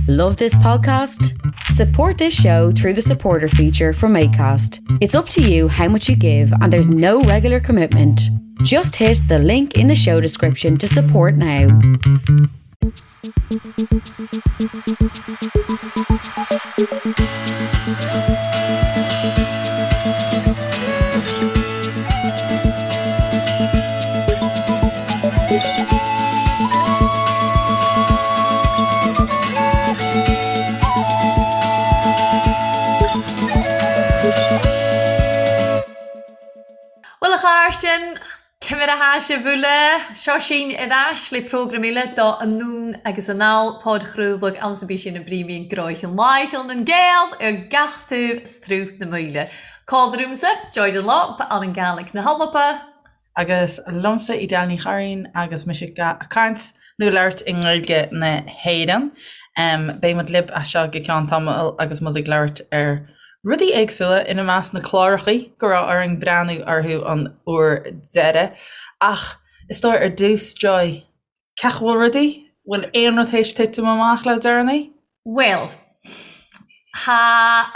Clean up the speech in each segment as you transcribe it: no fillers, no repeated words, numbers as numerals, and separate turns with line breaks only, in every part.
Love this podcast? Support this show through the supporter feature from ACAST. It's up to you how much you give, and there's no regular commitment. Just hit the link in the show description to support now.
Bhuel a chairdean, Ciamar a tha sibh uile? Seo sinn ar ais le prógram eile do Anonn agus Anall, podchraoladh anns a bí sinn a bpríomhaíonn gnoithean Láicheal nan Gael ar gach taobh 's truth na maoile. Còmhla riumsa, Joy Dunlop, ann an Gàidhlig na h-Alba.
Agus liomsa Edel Ní Churraoin agus mise ag caint nó labhairt i nGaeilge na hÉireann. Beidh muid libh as seo go ceann tamaill agus muid ag labhairt ar rudaí éagsúla, ina measc na clárachaí go raibh orainn breathnú orthu an uair deiridh. Ach is dóigh ar dtús, Joy, cén chaoi a bhfuil rudaí? Bhfuil aon rud théis titim amach le deireanaí?
Bhuel, tha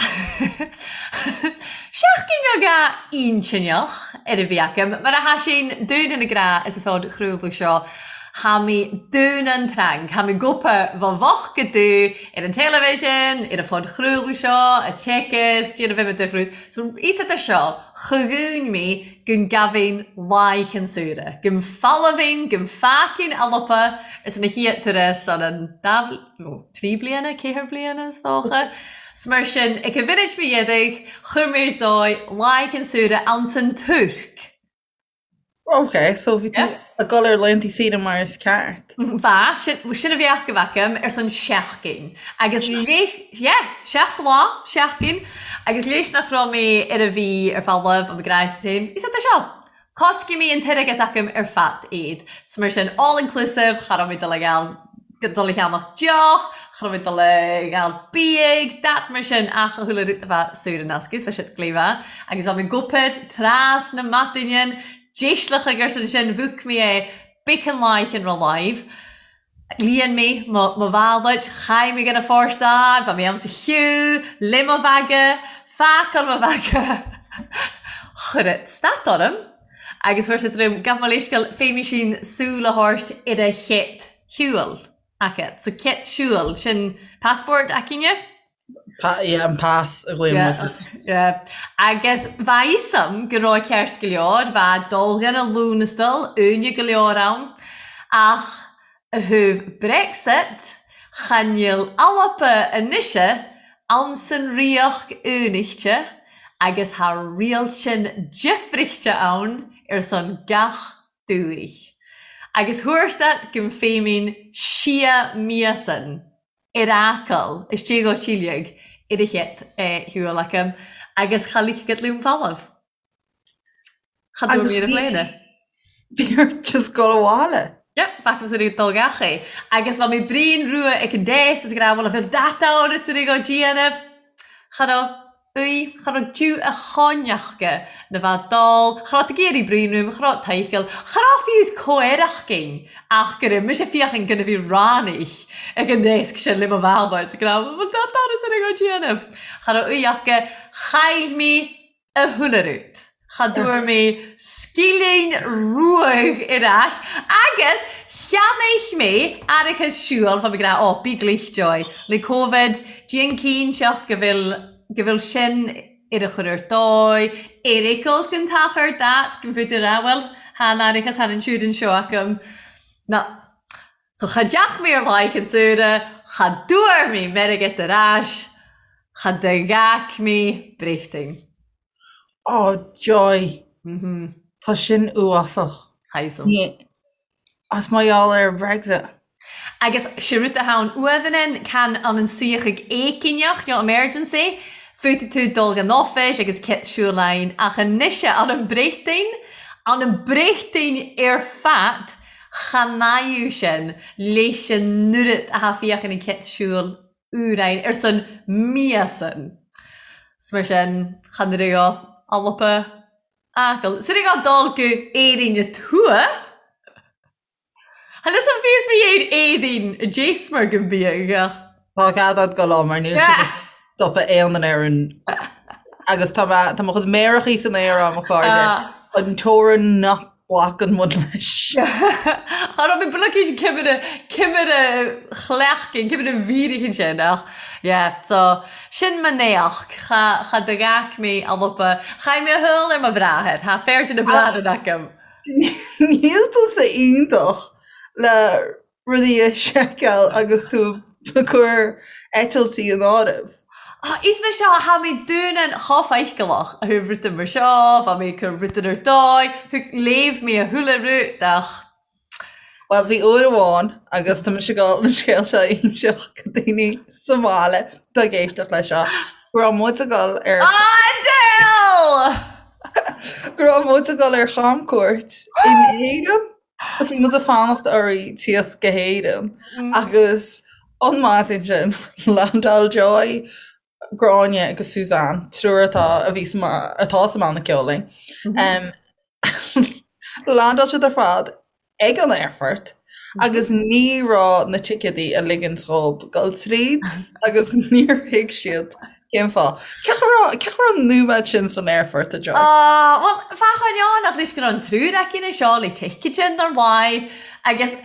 seachdain aga inntinneach air a bhith agam, mar a tha sinn dùn an gra is a phodchraoladh seo, tha mi dùn an trang, tha mi gopa bha bhocht go dubh ar an teilifísean, ar an phodchraoladh seo, a téacs, déanamh bheith do chrúd. So, iosad air seo, cha dhún mi gun gabhainn laich an saoire, gun falbhainn, gun fácainn Alba arsa na hiat turas an an dá nó tri bliana, ceathair bliana is dócha. 'S mar sin, ag a bhfinis mo dhéadaigh, chuir mé ar dóigh laich an saoire anns an Tuirc.
Ok, so bhí tú ag dul ar laethantaí saoire mar is ceart.
Bha, sin, sin a bheadh go bhfeicim ar son seachtain. Agus léis, yeah, seacht lá, seachtain, agus léis nach raibh mé ar a bhí ar falamh an gcráin féin, is é seo. Coscaidh mé an t-airgead agam ar fad iad. 'S mar sin, all inclusive, cha raibh mé dul ag dul a cheannach deoch, cha raibh mé dul ag fháil biaidh, dat mar sin, ach a chuala rud a bheith saor in aisce, 's bheadh siad gléibhe. Agus bheadh mé ag obair trasna maidine, déisleach ag ar son sin, bhuac mé é, bacon laich an raibh live. Líon mé mo bhalait, chaith mé gan a fóirstean, bheadh mé ann sa chiú, le mo bhaga, phacáil mo bhaga, chuir it stad orm agus fuair sé droim, gabh mo leithscéal, féadfaidh sin súil a thabhairt ar a chéad shiúl aici. So céad siúl, sin passport aici-ne?
Yeah, an pas a ghlaonn muid air.
Yeah. Agus bha fhios a'm go raibh ceart go leor, bha dul dhen a Lúnastal, uaine go leor ann, ach a thaobh Brexit, cha níl Alba anois ann san Ríocht Aonaichte agus tha riailtean difrichte ann ar son gach dúich. Agus thabhairt go bhféiminn sia míosan. ar Acaill, istigh ó Tíligh ar a chéad shiúl acu agus cha ligfeadh liom folamh. Cha dtabhair mé ar an bpléine.
Bhí ort just dul abhaile.
Yep, bhfacthas ar dul gach é. Agus bha mé bréan rua ag an deas is ag rá bhuel a bhfuil dat ann is ar ag déanamh. Cha raibh. í, cha raibh due a choinneachga na bheith dall, cha raibh ag iarraidh bruíon uaim, cha raibh tadhall, cha raibh fiú is comhaireachgain ach go raibh mise féachaint go na bhí ráinig ag an deasc sin le mo bhealach, go raibh mo doras ar a déanamh. Cha raibh í ach go chaill mé a chuile rud. Cha dtabhair mé scilling ruadh ar ais agus cheannaigh mé árachas siúil, bha mé ag rá, ó, bí glich, Joy, le Covid, déan cinnteach go bhfuil, go bhfuil sin ar a chur ar dóigh, ar eagles gon t-achar dat, go bhfuil tú ag rá, bhuel, tha an árachas, tha an insurance seo agam. Ná, so cha dteach mé ar mhaith an tsaoire, cha dtabhair mé m'airgead ar ais, cha d'fhág mé Bréachtain.
Oh joy. Tá sin uafásach.
Tha
As mar gheall ar Brexit.
Agus sé rud a tha ann uamhan can an an suíochadh éiginneach nó emergency, féadfaidh tú dul gan office agus cit siúl ann ach anois an an Bréachtain, an an Bréachtain ar fad cha n-aidh sin leis an oiread a tha féachann an cit siúl úráin ar son míosan. 'S mar sin, chan raibh á alpa Acaill. 'S raibh á dul go Éirinn a tuath. Chan fhios a'm fiú is mo dhéin éadaoin a d'éasmar go mbiadh ach.
Tá cead agat dul ann mar níl siad ag stopadh aon duine ar an agus tá mé tá mo chuid méarachaí san aer agam a chairde an teorainn nach nglacann muid leis.
Cha raibh mé blocaí cimire cimire chleachtainn cimire mhírichin sin ach yeah so sin mo néach cha cha do ghac mé a lupa chaith mé a shúil ar mo bhráthair thá feirde na bráthar agam.
Níl tusa iontach le rudaí a sheiceáil agus tú ag cur eitiltí in áireamh.
Is na seo, tha mi dùnan cho faichilleach a thu rudan mar seo, bha mi ag cur rudan air dòigh, thug léamh mi a chuile rud ach.
Bhuel, bhí uair amháin, agus tá mise ag dul an scéal seo a inseacht go daoine sa mbaile atá ag éisteacht leis seo, go raibh muid ag dul ar.
Adele!
Go raibh muid ag dul ar chamcuairt in Éirinn. Agus bhí muid ag fanacht oraibh tíocht go hÉirinn agus an maidin sin landáil Joy, Gráinne agus Suzanne, triúr atá a bhí sa atá sa mbanna ceoil linn. Landáil siad ar fad ag an aerfort agus ní raibh na ticéadaí ag ligint dhóibh dul tríd agus níor thuig siad Cén fáth? Cén chaoi raibh, cén chaoi raibh an nóiméad sin san aerfort, a Joy?
Ah, bhuel, bheadh an ach anois go raibh an triúr aici na seo le ticket sin ar mhaith agus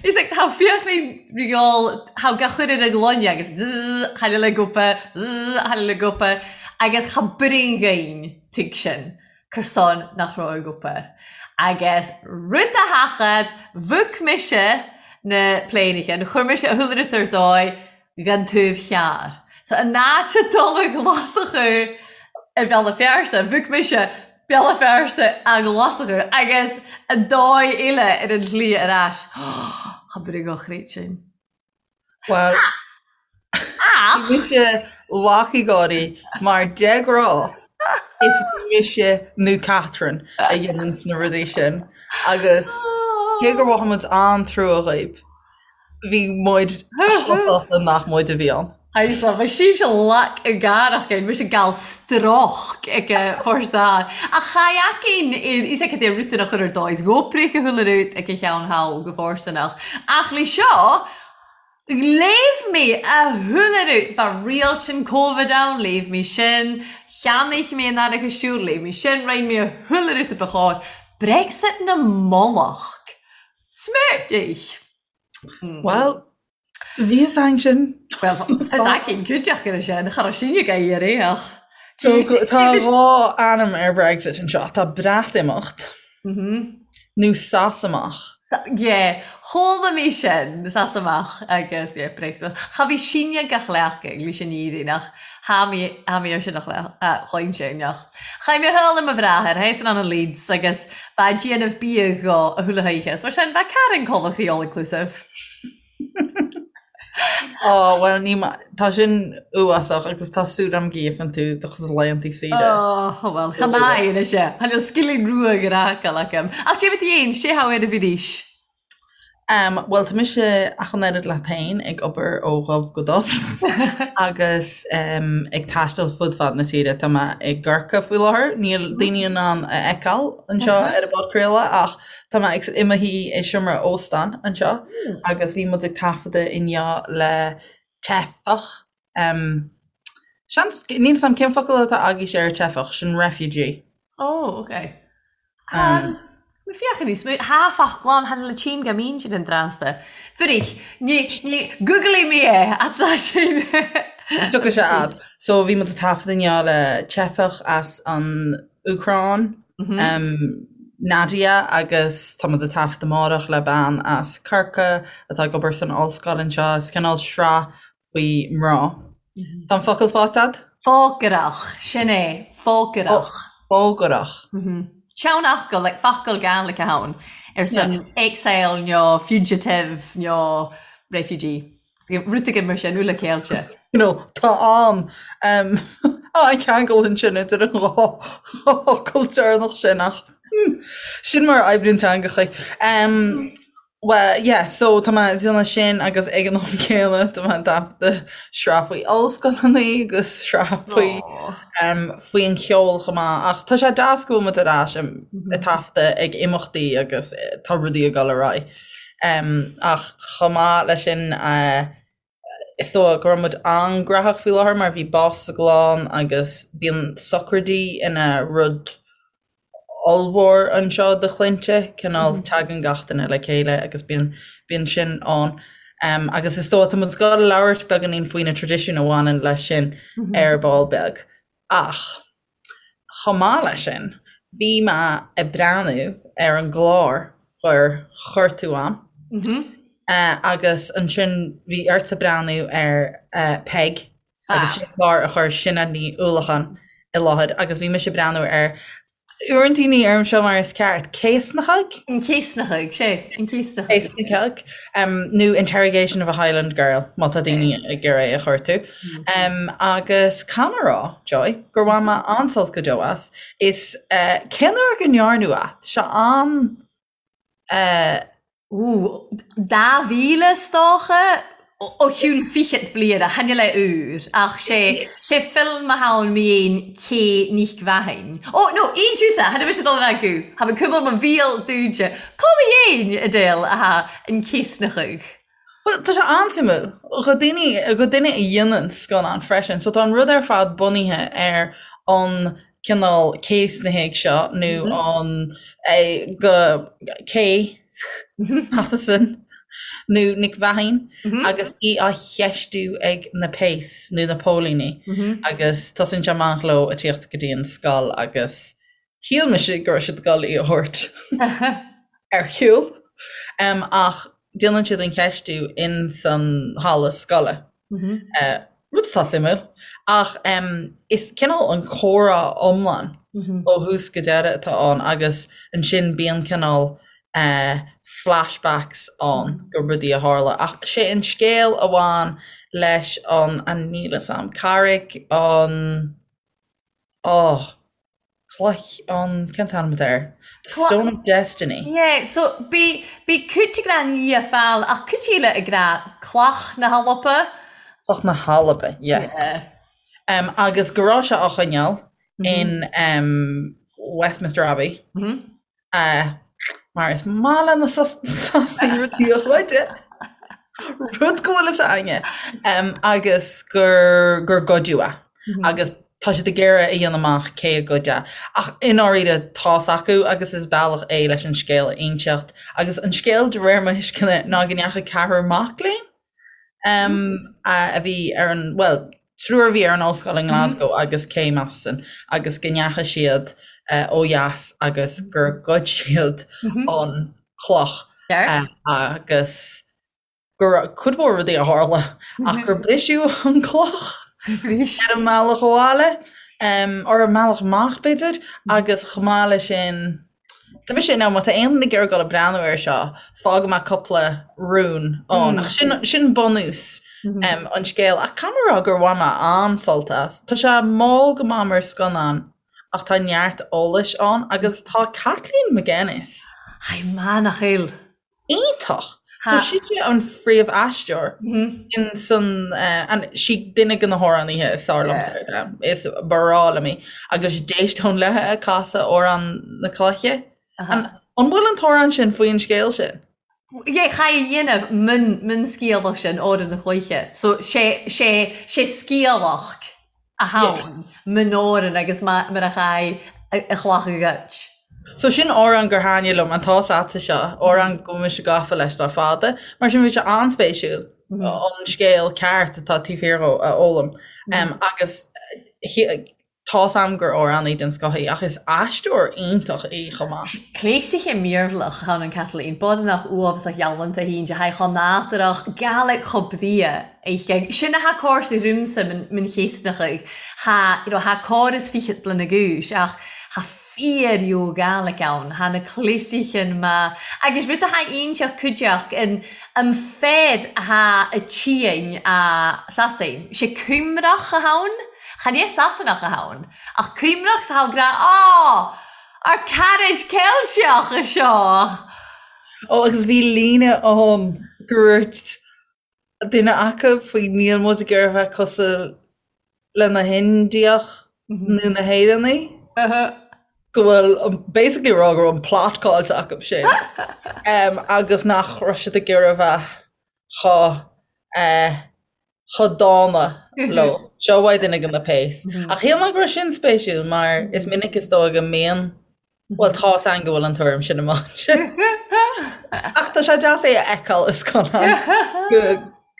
is like tá fiachraí riáil tá gach chuir ar a ngloine agus tháinig le gupa, tháinig le gupa agus cha bring ghain tig sin cur son nach raibh ag obair. Agus rud a thachair, bhuac mise na pléineacha, nó chuir mise a shúil ar dóigh den taobh thiar. So in áit a dul i nGlaschú i Béal Feirste, bhuac mise Béal Feirste a Ghlaschú agus an dóigh eile ar an tslí ar ais. Cha bhfuil go chríoch sin.
Bhuel,
Ach!
bhí mise lach ag gáirí mar de ghnáth is mise nó Catherine a dhéananns na rudaí sin agus cé gur mhothaigh muid an-trua dhaoib, Bhí muid chomh sásta nach muid a bhí ann.
Aye, so bhí sibhse lac i gcarach air, mise gal stroch ag a forstá. Ach cha fheacainn is ag é rutan a chur ar dóigh, is ghoprich a chuile rud ag a cheann thall go fóirsteanach. Ach le seo, léamh mé a chuile rud, bheadh rialtan Covid ann, léamh mé sin, cheannaigh mé an earracha siúil, léamh mé sin, roinn mé a chuile rud a ba chóir. Brexit na mullach. Smertich!
Bhuel, bhí fhios againn sin.
Bhuel, fhios againn cuideachta ar sin, cha raibh sin ag éirí ach.
So tá dhá ainm ar Brexit anseo, tá Breatimeacht nó Sasamach.
Yeah, chuala mé sin, Sasamach agus yeah, Breatimeacht. Cha bhí sinne gach leac ag leis an iarraidh nach tha mé tha mé ar sin a chloigne sin ach. Chaith mé thall ar mo bhráthair, théis an an Leeds agus bheith ag déanamh bia dho a chuile hoíche, is mar sin bheadh Karen Coventry all inclusive.
Ó, bhuel, ní ma-, tá sin uafásach agus tá súil agam go gheobhann tú do chuid laethanta saoire.
Ó, bhuel, cha maith anois é. Tá an scilling rua ag an fhágáil agam. Ach déarfaidh tú fhéin, sé how ar a bhí
Em, bhuel, tá mise ach an oiread leat féin ag obair ó dhubh go dubh agus em, ag taisteal fud fad na tíre. Tá mé i gCorcaigh faoi láthair. Níl daoine in ann a fheiceáil anseo ar an bpodchraoladh ach tá mé ag, i mo shuí i seomra óstáin anseo agus bhí muid ag taifeadadh inniu le teifeach. Em, seans, níl 'fhios a'm cén focal atá agaibhse ar teifeach, sin refugee.
Oh, okay. Um, Mi féach níos mó thá focla ann chan le tchím go mín sin an drásta. Fuirich, ní, ní, Google mé é, atá sin.
Tiocfaidh sé a'd. So bhí muid ag taifead inniu le teifeach as an Úcráin, um, Nadia, agus tá muid ag taifead amárach le bean as Corcaigh atá ag obair san ollscoil anseo. Is cineál sraith faoi mná. Tá an focal faighte a'd?
Fógarach, sin é, fógarach.
Fógarach.
Seanfhocal, like focal Gaelic ann, ar son exile nó fugitive nó refugee. Rud éigin mar sin, uile céilte.
You know, tá an um, an ceangal ansin idir an dhá fhocal deireanach sin ach hmm, sin mar a oibríonn teangacha. Um, Bhuel, yeah, so tá mé ag déanamh sin agus ag an am céanna tá mé ag taifeadadh sraith faoi ollscoileanna agus sraith faoi um, faoi an cheol chomh maith. Ach tá sé deas go bhfuil muid ar ais ag taifeadadh ag imeachtaí agus tá rudaí ag dul ar aghaidh. Um, ach chomh maith leis sin uh, Is dóigh go raibh muid an-ghnóthach faoi láthair mar bhí bás sa gclann agus bíonn socraidí ina rud ollmhór anseo do chlainnte, cineál tagann gach duine le chéile agus bíonn bíonn sin ann. Agus is dóigh tá muid ag gabháil a labhairt beagáinín faoi na traidisiúin a bhaineann leis sin ar ball beag. Ach chomh maith leis sin, bhí mé ag breathnú ar an gclár gur chuir tú a'm agus ansin bhí ortsa breathnú ar Peig agus sin clár a chuir Sinéad Ní Uallacháin i láthair agus bhí mise ag breathnú ar Uaireanta ní deirim seo mar is ceart, Céasnachadh?
An Céasnachadh, sé, an Céasnachadh.
Céasnachadh, nó Interrogation of a Highland Girl, má tá daoine ag iarraidh é a chuartú. Agus caithfidh mé a rá, Joy, gur bhain mé an-sult go deo as. Is cén uair go ndearnadh é? Tá sé an.
Ó, 2000 is dócha, ó chionn fichead bliana, chan eil e úr, ach sé, sé film a tha ann mi fhèin Kay Nic Mheathain. Ó, no, aon tusa, chan eil mise dol a bheith acu, tha mi cumail mo bheal dúide. Cò mi fhèin, a Edel, a tha an Céasnachadh?
Bhuel, tá sé an-suimiúil do daoine, do duine a dhéanann scannán freisin. So tá an rud ar fad bunaithe ar an cineál céasnaithigh seo nó an go Kay Matheson nó Nic Mheathain agus í á cheistiú ag na péas nó na póilíní agus tosaíonn sé amach leo ag tíocht go dtí an scoil agus Shíl mise go raibh siad ag dul í a thabhairt ar shiúl ach déanann siad an cheistiú in san halla scoile. Rud atá suimiúil ach is cineál an comhrá iomlán ó thús go deireadh atá ann agus ansin bíonn cineál flashbacks ann go rudaí a tharla ach sé an scéal a bhain leis an, an níl 'fhios a'm, carraig an Oh, cloich an, cén t-ainm atá air? The Stone of Destiny.
Yeah, so bhí, bhí cuid ag rá Lia Fáil ach cuid eile ag rá Cloch na hAlba.
Cloch na hAlba, yes. Yeah. Um, agus go raibh sé á choinneáil in um, Westminster Abbey. Mm -hmm. Mar is maith le na Sasanaigh rudaí a ghoid, rud go bhfuil fhios againne, agus gur gur goideadh é. Agus tá siad ag iarraidh a dhéanamh amach cé a ghoid é. Ach i ndáiríre tá's acu agus is bealach é leis an scéal a inseacht. Agus an scéal de réir mo thuisceana ná go ndeachaigh ceathrar mac léinn a bhí ar an, bhuel, triúr a bhí ar an ollscoil i nGlasgow agus Kay Matheson agus go ndeachaigh siad ó dheas agus gur ghoid siad an cloch agus go raibh cuid mhór rudaí a tharla ach gur briseadh an cloch ar an mbealach abhaile, ar an mbealach amach b'fhéidir, agus chomh maith leis sin Tá mise in ann, má tá aon duine ag iarraidh dul ag breathnú air seo, fágfaidh mé cúpla rún ann. Ach sin, sin bunús an scéil. Ach caithfidh mé a rá gur bhain mé an-sult as. Tá sé mall go maith mar scannán ach tá neart eolais ann agus tá Kathleen McGuinness.
Tha i manach eil.
iontach. So sise an phríomh-aisteoir in san an sí duine de na hamhránaithe is fearr liomsa ar domhan. Is breá liom í. Agus d'éisteoinn léithe ag casadh Amhrán na Cloiche. An an bhfuil an t-amhrán sin faoin scéal sin?
Yeah, cha i dhéanamh mun mun sciathlach sin Amhrán na Cloiche. So sé sé sé sciathlach a tha ann mun òran agus mar a chaidh a chlach a ghoid.
So sin amhrán gur thaitnigh liom, an tá's a'dsa seo, amhrán go bhfuil mise gafa leis le fada. Mar sin bhí sé an-spéisiúil an scéal ceart atá taobh thiar dhó a fhoghlaim. Agus tá's a'm gur amhránaí den scoth í ach is aisteoir iontach í chomh maith.
Cléasaithe mírbhleach tha ann an Kathleen, bodnach uabhasach ghealanta hínn de haghaidh chomh nádúrach, Gaelic chomh bria. Oidhche. Sin atha còrsa riumsa mun Chéasnachaidh. Tha, you know, tha còras fichead bliana dh'aois ach tha fíor-reo Gàidhlig ann. Tha na cleasaichean math. Agus rud atha iontach cuideachd an an fear atha a tìonn a Sasain. Sé Cuimreach a tha ann. Chan e Sasanach a tha ann. Ach Cuimreach 's atha ag ràdh, Á! Ár caraid Ceilteach a seo!
Ó agus bhí líne ann gur dhúirt duine acu faoi níl muid ag iarraidh a bheith cosúil le na hIndiaigh nó na hÉireannaigh go bhfuil basically rá go raibh an plot caillte acu sin agus nach raibh siad ag iarraidh a bheith chomh eh. chomh dána leo. Seo uaidh duine de na péas. Ach shíl mé go raibh sin spéisiúil mar is minic is dóigh go mbíonn, bhuel tá's againn go bhfuil an tuairim sin amach ansin. Ach tá sé deas é a fheiceáil i scannán go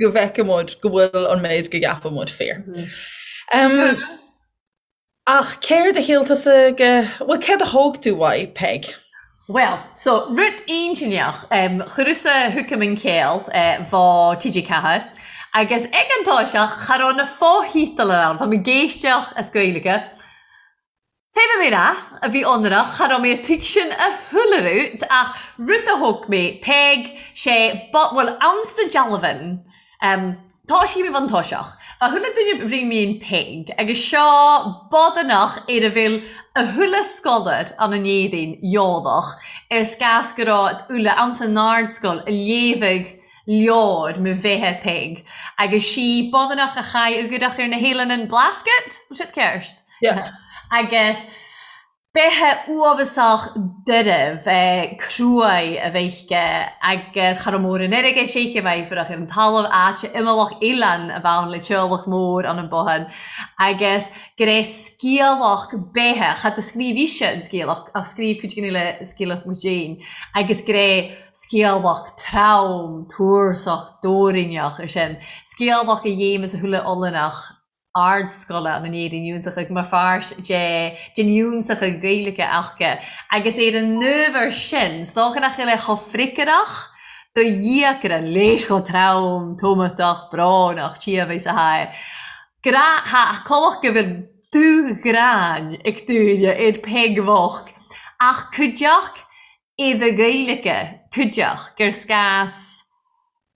go bhfeiceann muid go bhfuil an méid go gceapann muid fíor. Ach céard a shíl tusa go, bhuel céard a thóg tú uaidh, Peig?
Bhuel, so, rud intinneach, em, chuireas-sa chucam an chéill, eh, bhá TG4, agus ag an toiseach, cha raibh na fothítealair ann, bha mi ag éisteach as Gaeilge. Fé bha mi rá, a bhith ionnrach, cha raibh mé a' tuigsinn a chuile rud, ach rud a thóg mé, Peig, sé, ba, bhuel, ann sna dealbhain, Em, tá sí i mo bhuntoiseach. Bha chuile duine ri mín Peig, agus seo bodanach ar a bhfuil a chuile sgolair ann an Éirinn eòlach air 's gas gu robh uile ann san ardsgoil a léamhadh leabhar mo bheithe Peig, agus sí bodanach a chaidh ugarach ar na h-Eileanan an Blasket, bhfuil siad ceart?
Yeah.
Agus Beithe uabhasach doirbh, cruaidh a bheith aici agus cha raibh mórán airgid aici, bheith fuireach ar an talamh, áit imeallach oileán a bheith ann le teaghlach mór ann an bothán agus go raibh sciamhach beithe, cha do scríobh ise an sciamhach ach scríobh cuid den uile sciamhach muid féin agus go raibh sciamhach trom, tuarsach, dóiríneach ar sin, sciamhach a dhéamas a chuile oileánach. ardscoile an Éirinn Iúnsachadh mar pháirt de den Iúnsachadh Gaeilge aca agus ar an n-ábhar sin 's dócha nach bhfuil é chomh freagrach do dhíocaire léis chomh trom, tómatach, brónach, tí a bheith sa haghaidh. Grá, ha, colach go bhfuil dúghráin ag daoine ar Peig bhocht ach cuideachd i do Ghaeilge, cuideachd gur sgas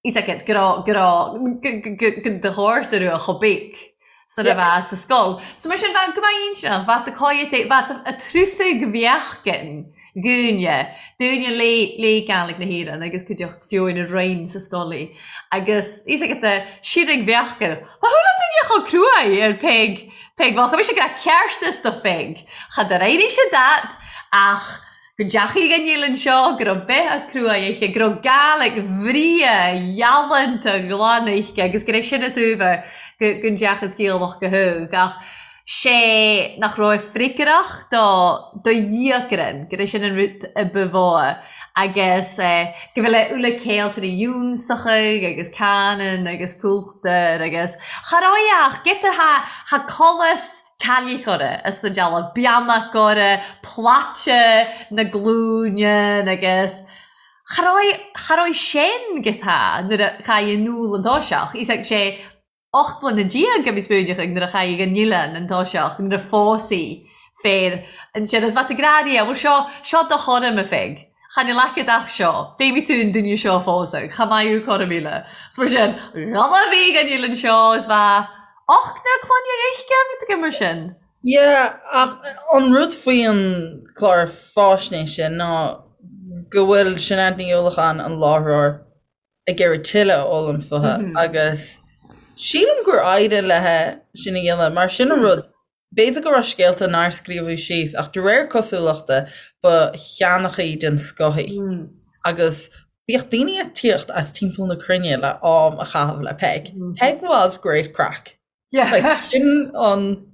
Is aici go raibh, go raibh, go do dhóirt a raibh chomh big 's nuair a bheadh sa scoil. So mar sin, bheadh go mbeadh inseach, bheadh do cáidhe, bheadh a trusaigh mheáchain dhúinne, dúinne lé, lé Gaelic na hÉireann agus cuideachta fiúin a roinn sa scoil í. Agus is aici do sirig mheáchain. Ba chuala duine chomh cruaidh ar Peig, Peig bheadh, bhí sé go raibh ceartas do Pheig. Cha do éirigh sé dat ach go ndeachaigh an Eilean seo, go raibh beithe cruaidh aici, go raibh Gaelic bhreá ghalánta ghlan aici agus go raibh sin is uabhar go go ndeachas Gaelach go hóg ach sé nach raibh freagrach do do dhíocrann, go raibh sin an rud a ba mhó agus go bhfuil a uile céiltear iúnsachaigh agus canann agus cúltar agus cha raibh ach giota tha tha colas cailligh orra as an dealbh, beannacht orra, plaite na glúine agus cha raibh, cha raibh sin go tá nuair a chaith an úll an toiseach. Is ag sé 18 mbliana a bhí spúineach nuair a chaith an oileán an toiseach, nuair a phós í féar ansin is bheadh grá ria, bhuel seo, seo do chorm a Pheig. Chan fhuil agat ach seo, féimidh tú an duine seo a phósadh, cha mbeidh thú corm eile. Is mar sin, dhul a bhí an oileán seo is bheadh Ochtar clainne aici, rud éigin mar sin.
Yeah, ach an rud faoi an clár faisnéise ná go bhfuil Sinéad Ní Uallacháin, an láithreoir, ag iarraidh tuilleadh a fhoghlaim fúithi agus sílim gur éirigh léi sin a dhéanamh mar sin an rud, b'fhéidir go raibh scéalta nár scríobhadh síos ach de réir cosúlachta ba sheanchaí den scoth í agus Bhíodh daoine ag tíocht as timpeall na cruinne le am a chaitheamh le Peig. Peg was great craic. Like, sin an,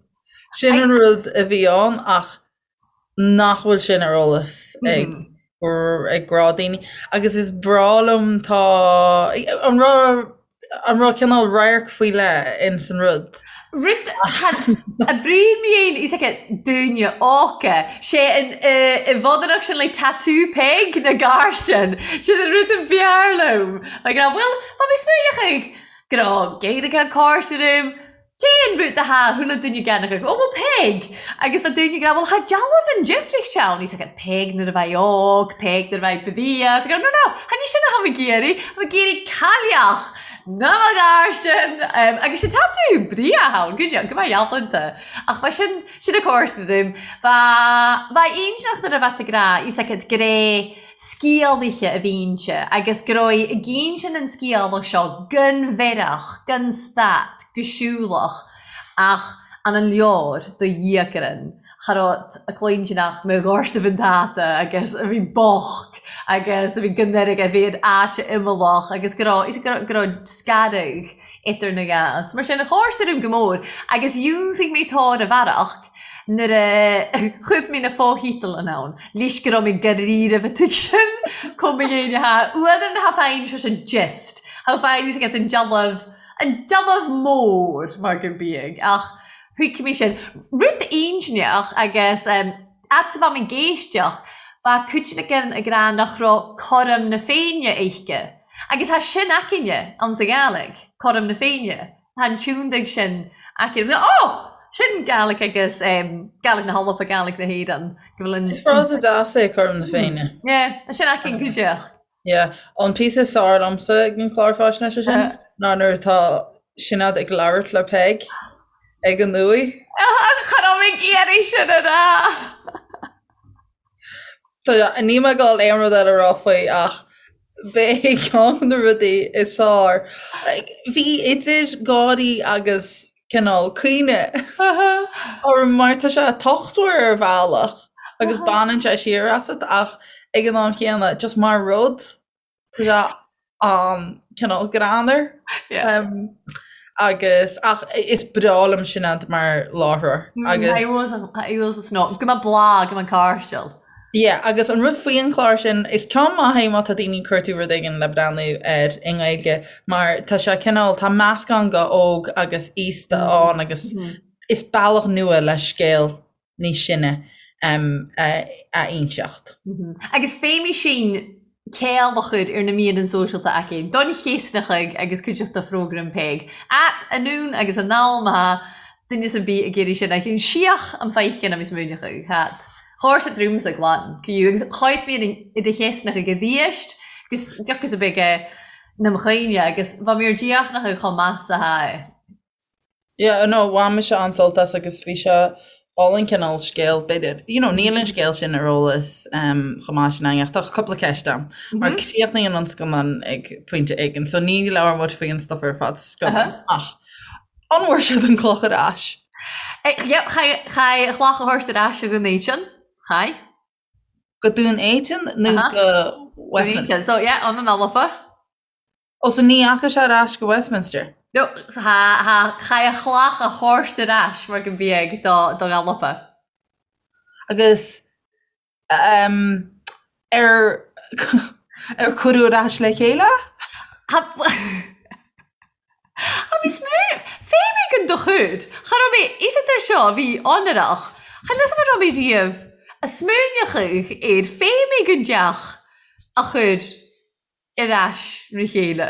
sin an rud a bhí ann ach nach bhfuil sin ar eolas ag ag gnáthdhaoine. Agus is breá liom tá an raibh An raibh cineál radharc faoi leith ins an rud?
Rud a bríomh is aici dúine óca. Sé an i bhfodaireacht sin le tattoo Peig na gar sin. Sin an rud a b'fhearr liom. Like, bhuel, tá mé smaoineach ag go raibh Gaeilge cársarim. Déan rud a tha chuile duine geanach ag, Ó bhuel Peig! Agus tá daoine ag rá bhuel tha dealbh an difríocht ann. He's like Peig nuair a bheidh óg, Peig nuair a bheidh bia. It's like no no, tha ní sin a tha mé ag iarraidh, tha mé ag iarraidh cailleach na mo ghairsin! Agus sin tattoo bria ann, go go mbeidh ealaíonta. Ach bha sin, sin a cósta dúinn. Bha, bha aointeach nuair a bheadh ag rá, he's like it grey sciálaithe a bhí inti agus go raibh i gcinntean an sciálach seo gan bhearach, gan stad, go siúlach ach an an leor do dhíocaran cha raibh a cluinteanach mo ghortaibh an táta agus a bhí bocht agus a bhí gan airgead, a bhí in áit imeallach agus go raibh, go raibh scaradh. idir na gas. Mar sin, chóir orm go mór agus dhiúnsaigh mé tóir a bhearach nuair a chuid mé na fotheideal in ann, leis go raibh mé dáiríribh a tuigsin chomh mo dhéine ha uadar na ha féin seo sin gist ha féin is ag an dealbh an dealbh mór mar go bíodh ach thuig mé sin rud intinneach agus fhad 's a bheadh mé ag éisteacht bheadh cuid againn ag rá nach raibh cothrom na Féinne aici. Agus tá sin againne ann sa Ghàidhlig, Cothrom na Féinne. Tá an tiúndaigh sin aici. Ó! Sin Gàidhlig agus Gàidhlig na hAlba, Gàidhlig na hÉireann. Go bhfuil an.
Is frása deas é Cothrom na Féinne.
Yeah, tá sin againn go díreach.
Yeah. An píosa is fearr liomsa ag an chlár faisnéise sin ná nuair atá Sinéad ag labhairt le Peig ag an uaigh.
Cha raibh mé ag iarraidh sin a rá!
Níl mé ag dul aon rud eile a rá faoi ach b'é ceann de na rudaí is fearr. Bhí idir gáirí agus cineál caoineadh orm mar tá sé tochtmhar ar bhealach agus baineann sé siar asat ach ag an am chéanna just mar rud Tá sé an-cineál greannmhar. Agus ach is breá liom Sinéad mar láithreoir
agus. Tá go maith blag go maith cairdiúil.
Yeah, agus an rud faoi an chlár sin, is ceann maith é má tá daoine ag cuartú rud éigin le breathnú air i nGaeilge mar tá sé cineál, tá meascán de óg agus aosta ann agus is bealach nua le scéal níos sine a inseacht.
Agus féimidh sinn céill a chur ar na míreanna sóisialta aici, don chéasnachaigh agus cuideachta phrógraim Peig. At anonn agus anall má thá duine ar bith ag iarraidh sin a síoch an feicinn agus múineachadh. Hat. Chóir sa drúmsa glan, cú agus cháit mé i do chéasnachaigh a dhíoist agus deocas a bheidh na mchaoine agus bha mé ar díochnachadh chomh maith sa thá.
Yeah, no, bhain mise an-sult as agus bhí sé álainn cineál scéal, b'fhéidir, you know, níl an scéal sin ar eolas um, chomh maith sin againn ach tá cúpla ceist agam, mar críochnaíonn an scannán ag pointe éigin, so ní labhair muid faoi an stuff ar fad sa scannán, ach an bhfuair siad an cloch ar ais?
Eh, yep, chaith an chloch a thabhairt ar ais go Dún Éideann, chaith.
Go Dún Éideann nó go Westminster?
So yeah, an an Alba.
Ó, so ní dheachaigh sé ar ais go Westminster?
No, tha, chaith a chlach a thabhairt ar ais mar go mbeadh do, do Alba.
Agus um, ar, ar cuireadh ar ais le chéile?
Tha, tha mé smaoineamh, fé mé go do chuid, cha raibh mé, is ar seo, bhí onrach, cha fhios agam an raibh mé riamh a smaoineachadh ar fé mé go dteach a chur ar ais re chéile.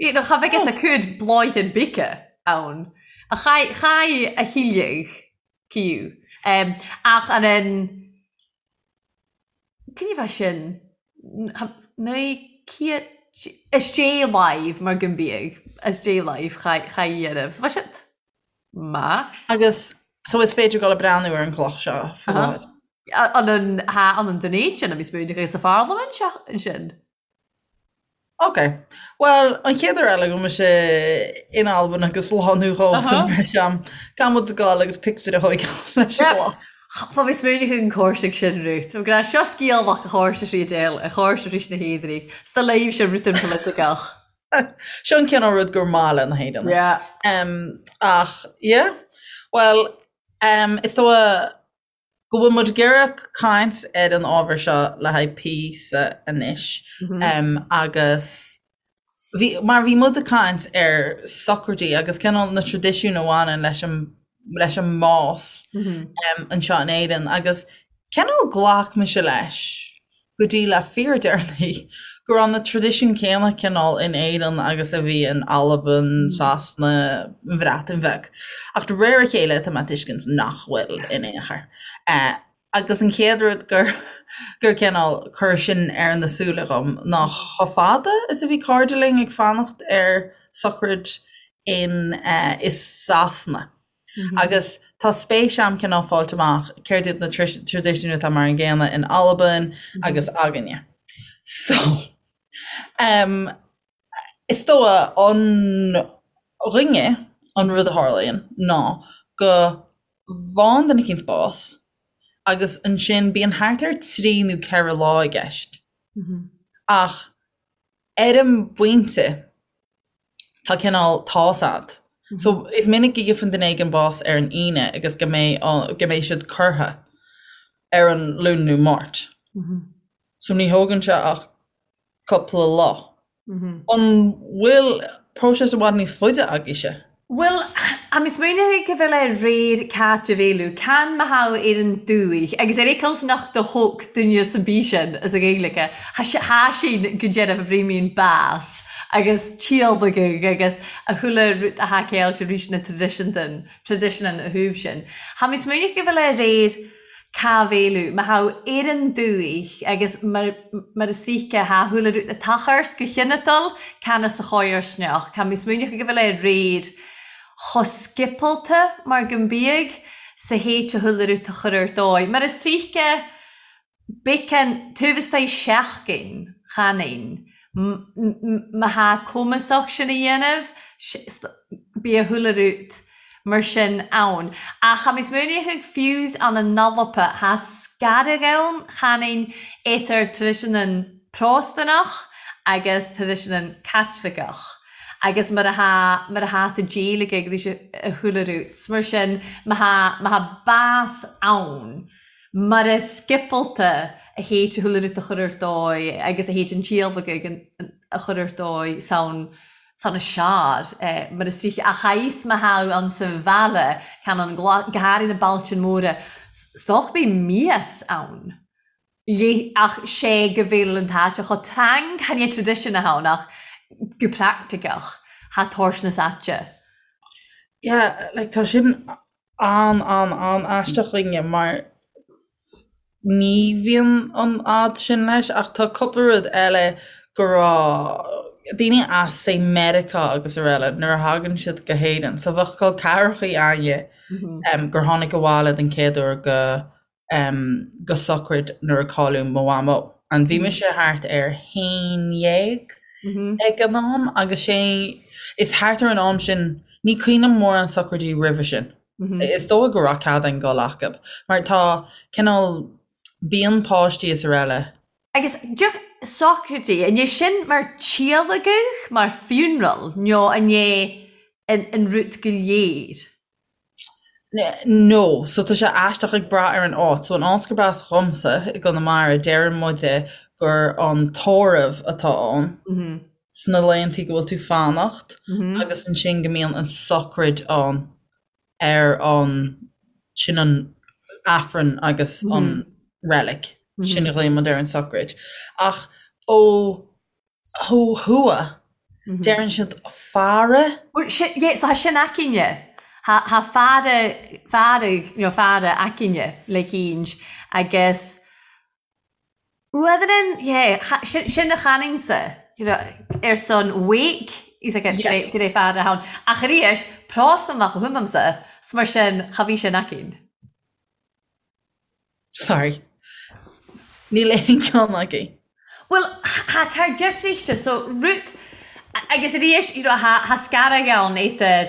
You know, cha bheadh a cuid bláithín bice ann. A chaith, chaith a thuilleadh ciú. Um, ach an an, cén bheith sin? 900, is dé live mar go mbíodh, is dé live chaith, chaith dhéanamh. So bheith siad maith.
Agus, so is féidir dul ag breathnú ar an gcloch seo faoi láthair.
An an ha an an Dún Éideann a bhí smaoineamh sa pharlaimint ansin.
Ok. Bhuel, an chéad uair eile go mbeidh mise in Albain agus lánú dhó san breis am, caithfidh muid a ghabháil agus pictiúr a thóigeáil leis an gcloch.
Tá mé smaoineamh an chóirsigh sin, Ruth. Tá grá seo sciáil a chóirse sí déal, a chóirse sí na héadrí. Sta léimh se rith an politiceach.
Seo an cineál rud gur maith le na hÉireannaigh.
Yeah.
Ach, yeah. Bhuel, is dóigh go bhfuil muid ag iarraidh caint ar an ábhar seo le haghaidh píosa anois agus bhí, mar bhí muid ag caint ar sochraidí agus cineál na traidisiúin a bhaineann leis an, leis an mbás anseo in Éirinn agus cineál ghlac mise leis go dtí le fíordheireanaí go raibh na traidisiúin céanna cineál in Éirinn agus a bhí in Albain, Sasana, an Bhreatain Bheag. Ach de réir a chéile tá mé ag tuiscint nach bhfuil in aon chor. Agus an chéad rud gur gur cineál chuir sin ar na súile dhom ná chomh fada is a bhí cairde linn ag fanacht ar sochraid in i Sasana. Agus tá spéis a'm cineál fáilt amach céard iad na traidisiúin atá mar an gcéanna in Albain agus againne. So, um, is dóigh againne an rud a tharlaíonn ná go bhfaigheann duine eicínt bás agus ansin bíonn thart ar 3 nó 4 lá i gceist. Ach ar an bpointe. Tá cineál tá's a'd. So is minic go gheibheann duine éigin bás ar an Aoine agus go mbeidh go mbeidh siad curtha ar an Luan nó Máirt. So ní thógann sé ach cúpla lá. An bhfuil próiseas i bhfad níos faide agaibhse?
Bhuel, tha mi smaoineachadh go bheil e reir Càit a Bheil can ma tha ar an dùthaich, agus air aon nach do thóc duine san bith sin as a Ghaeilge, tha sin go deireadh a bhrímín bás agus tíolbagadh agus a chuile rud a tha ceilte rís na traidisiúntan, traidisiúnan a thaobh sin. Tha mi smaoineachadh go bheil e reir Ca bhféiliú, ma tha ar an dùthaich agus mar mar is ríce tha chuile rud a tachairt go chineatal can as a chomharsneach. Tha mi smaoineachadh go bhfuil é réir cho sciopalta mar go mbiadh sa théit a chuile rud a chur ar dóigh. Mar is tríce becan taobh istoigh seachtain chanainn ma tha cumasach sin a dhéanamh bidh a chuile rud mar sin ann. Ach tha mi smaoineachadh fiù's ann an Alba tha sgaradh ann chanainn eadar traidisiúnan Pròstannach agus traidisiúnan Caitliceach agus mar a tha mar a tha ta déiligh ag a chuile rud. 'S mar sin ma tha ma tha bás ann mar a sciopalta a théid a chuile rud a chur ar dóigh agus a théid an tíolbagadh a chur ar dóigh san san a seár mar is tríocha ach aos ma thadh ann sa bhaile can an go háirithe na bailtean móra stoc bíonn mias ann léi ach sé go bhfuil an t-áit cho trang chan é tradition a ann ach go practiceach tha toirt na áite.
Yeah, like tá sin an an an aisteach chugainne mar ní bhíonn an fhadhb sin leis ach tá cúpla rud eile go raibh daoine as say Meiriceá agus araile nuair a thagann siad go hÉirinn so bheadh col ceathrachaí a'inne gur tháinig abhaile den chéad uair go go sochraid nuair a cailleadh mo mhamó. And bhí mise thart ar haon dhéag ag an am agus sé is thart ar an am sin, ní cuimhin liom mórán sochraidí roimhe sin. Is dóigh go raibh cead a'inn dul acub mar tá cineál bíonn páistí is araile.
Agus deoch sochraidí, an é sin mar tíolaigeadh, mar funeral, nó an é an rud go léir?
No, so tá sé aisteach ag brath ar an áit. So an áit gurb as dhomsa, i gConamara, deireann muide gur an tórramh atá ann sna laethantaí go bhfuil tú fanacht agus ansin go mbíonn an sochraid ann ar an, sin an Aifreann agus an reilig, sin a ghlaonn muid ar an sochraid. Ach ó Ó thuaidh, deireann siad faire.
Bhuel, sin, yeah, so tha sin againne. Tha, tha faire, fearadh, you know, faire againne le cínn agus uadhrann, yeah, tha, sin, sin a chanainnse, you know, ar son wake, he's like, Yes. go raibh faire ann. Ach arís, Pròstannach a thumaimse, 's mar sin, cha bhí sin againn.
Sorry. Níl aon cheann againn.
Bhuel, tha car deifríchte, so rud, agus arís, you know, tha, tha sgaradh ann eadar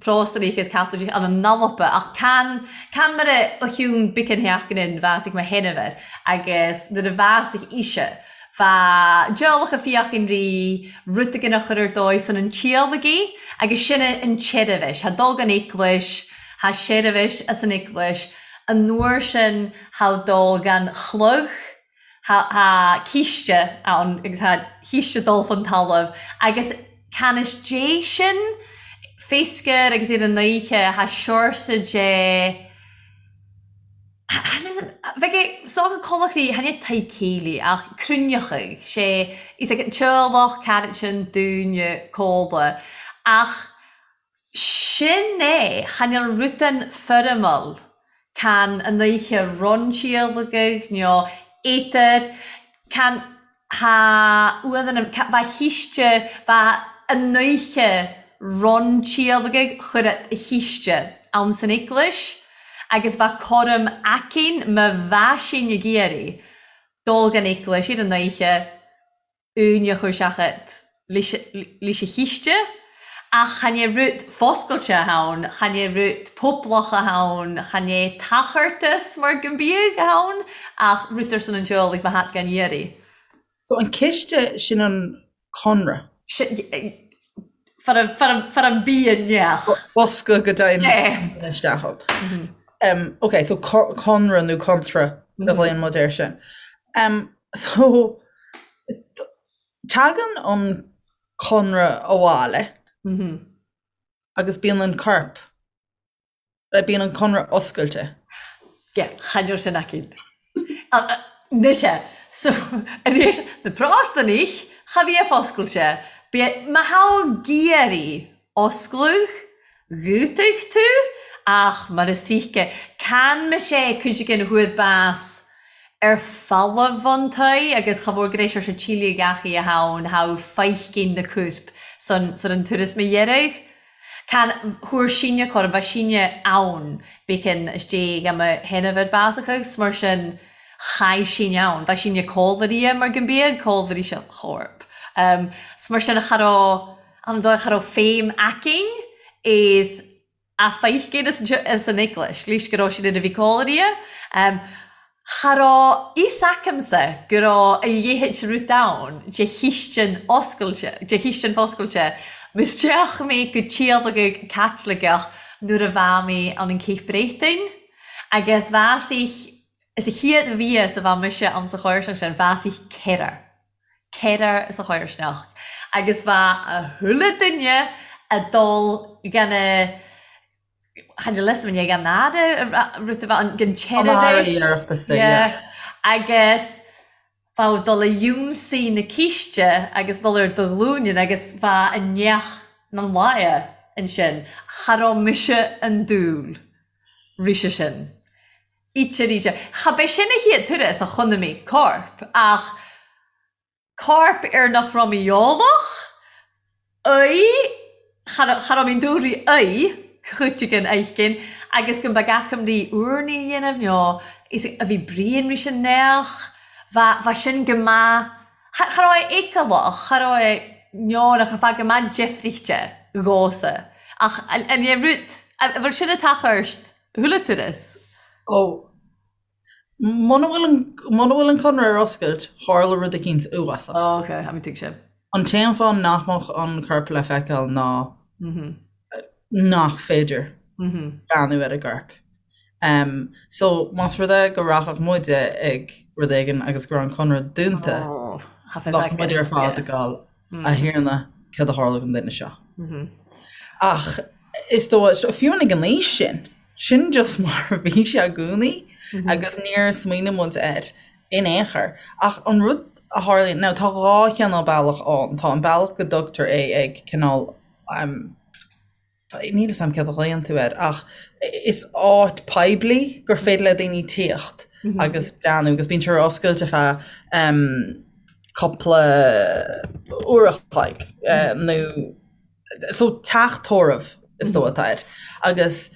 Pròstanaich is Caitlicigh ann an Alba, ach can, can mar a a chiúin bicean theach in bhásaigh mo sheanmháthair agus nuair a bhásaigh ise, bha dealach a fiach an rí, rud éigin a chur ar dóigh san an tíolagaí agus sin an tseirbhis, tha dul gon eaglais, Tha seirbhis as an eaglais, an uair sin tha dul gan chlog, tha tha císte ann agus tha císte dul fon talamh agus can is dé sin féascar agus ar an oíche tha seorsa dé bheadh é sách colachraí chan é tigh céilí ach cruinneachadh sé is ag an teaghlach caraitin dúine cóla ach Sin é, chan eil rudan foirmiúil, can an oidhche ron tíolaigeadh nó étar, can tha uadan an, bha chíste, bha an oidhche ron tíolaigeadh chuir a chíste ann san eaglais agus bha cúram aicinn ma bha sinn ag iarraidh dul gan eaglais ar an oidhche uaine a chur seachad leis a chíste, ach chan é rud foscailte ann, chan é rud poblach ann, chan é tachartas mar go mbíodh ann, ach rud ar son an teaghlaigh má tha gan iarraidh.
So an ciste sin an conradh?
Far an bia neach.
Bosca go dtéann isteach ann. Ok, so conradh nó contra a ghlaonn muid air sin. So tagann an conradh abhaile agus bíonn an corp Bíonn an conradh oscailte.
Yeah, chan eil sin againn. Mise, so, arís, na prástannaich, cha bhíodh oscailte. Bíodh, má tha ag iarraidh oscladh, dhútadh tú, ach mar is tuigthe, can mise cuid againn chuaidh bás ar falamh an toigh agus cha mhór gur éis ar se tíle gach oidhe ann, thá feithcinn na cuirp san, san an turas mo dheireadh. Can thuar sinne corn bha sinne ann bícinn istigh am a shéanamh ar bás agus mar sin chaith sinne ann. Bha sinne cómhairí mar go mbíodh cómhairí sa chorp. 'S mar sin cha raibh an dóigh cha raibh féim againn iad a feicinn as an eaglais, leis go raibh siad ina bhí cómhairí. Cha raibh fhios agamsa go raibh a leithéid de rud ann, de chistin oscailte, de chistin foscailte. M'isteach mé go teaghlach Caitliceach nuair a bha mé ann an Cape Breton agus bheas ich, is a chéad bhias a bha mise ann sa chomharsanacht sin, bheas ich ceithre, ceithre sa chomharsanacht agus bha a chuile duine a dul gan a, Chan eil fhios a'm an fhada rud a bheith ann den teilifís. Agus bheadh dul a ionsaí na císte agus dul ar do ghlúine agus bheadh a neach na láimhe ansin. Cha raibh mise an dúil rise sin. Íte ríte. Cha b'é sin a chéad turas a chonaic mé corp ach Corp ar nach raibh mé eolach aoi, cha raibh mé dúri aoi, chuitigh an agus go mbeadh acam rí úrnaí a dhéanamh nó is a bhí Brian rí sin neach, bha, bha sin go maith, cha, cha raibh é feiceálach, cha raibh é neodrach, bha go maith deifrichte dhósa. Ach an, an é rud, an bhfuil sin a tachairt chuile turas?
Ó, Muna bhfuil an, muna bhfuil an conradh ar oscailt, tharla rud eicínt uafásach.
Oh, ok, tha mi tuigse.
An t-aon fáth nach mbeadh an corp le feiceáil ná nach féidir breathnú ar an gcorp. So, más rud é go rachadh muide ag rud éigin agus go raibh an conradh dúnta, bheadh muid ar fad ag gabháil A Thiarna, céard a tharla don duine seo? Ach is dóigh, fiú ag an aois sin, sin just mar a bhí sé i gcónaí agus níor smaoinigh muid air in aon chor. Ach an rud a tharlaíonn, now tá dhá chineál bealach ann, tá an bealach go dtugtar é ag cineál, Níl 'fhios a'm céard a ghlaonn tú air ach is áit poiblí gur féidir le daoine tíocht agus breathnú agus bíonn sé ar oscailt ar feadh cúpla uair a chloig nó so teach tórraimh is dóigh atá air agus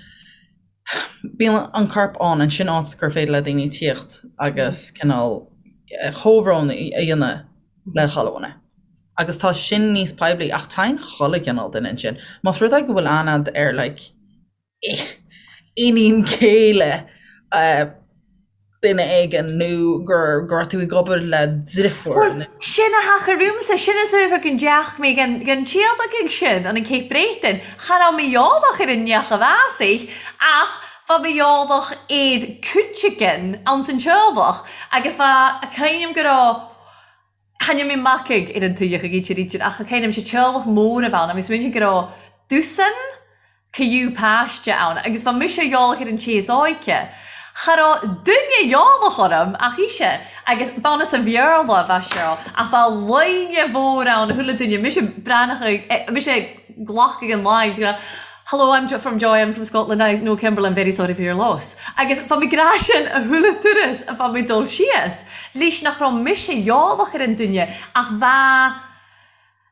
bíonn an corp ann ansin áit gur féidir le daoine tíocht agus cineál comhbhrón a dhéanamh le chuile dhuine. Agus tá sin níos poiblí ach téann chuile chineál duine ansin. Más rud é go bhfuil aithne a'd ar like iníon céile duine éigin nó gur go raibh tú ag obair le driofúr
Bhuel, nó. sin a thaca romhamsa, sin is uaibh go ndeach mé gan gan tíolach ag sin an an Cape Breton. Cha raibh mé eolach ar an neach a bheas ach bha mé eolach air cuiteagan ann san teaghlach agus bha a cuimhním go raibh Tháinig mé macaigh ar an tuigheach ag íte ríte ach cuimhním sé teaghlach mór a bheith ann agus smaoinigh go raibh dosaen criú páiste ann agus bha mise eolach ar an té is óige. Cha raibh duine eolach orm ach ise agus b'ann as an Bhéarla a bha sé ach bha line mhór ann chuile duine mise breathnach ag mise ag glacadh an line agus ag rá Hello, I'm from Joy, I'm from Scotland, I know Kimberley, I'm very sorry for your loss. Agus bha mi ag ràdh sin a chuile turas a bha mi dol síos, leis nach raibh mise eolach ar an duine ach bha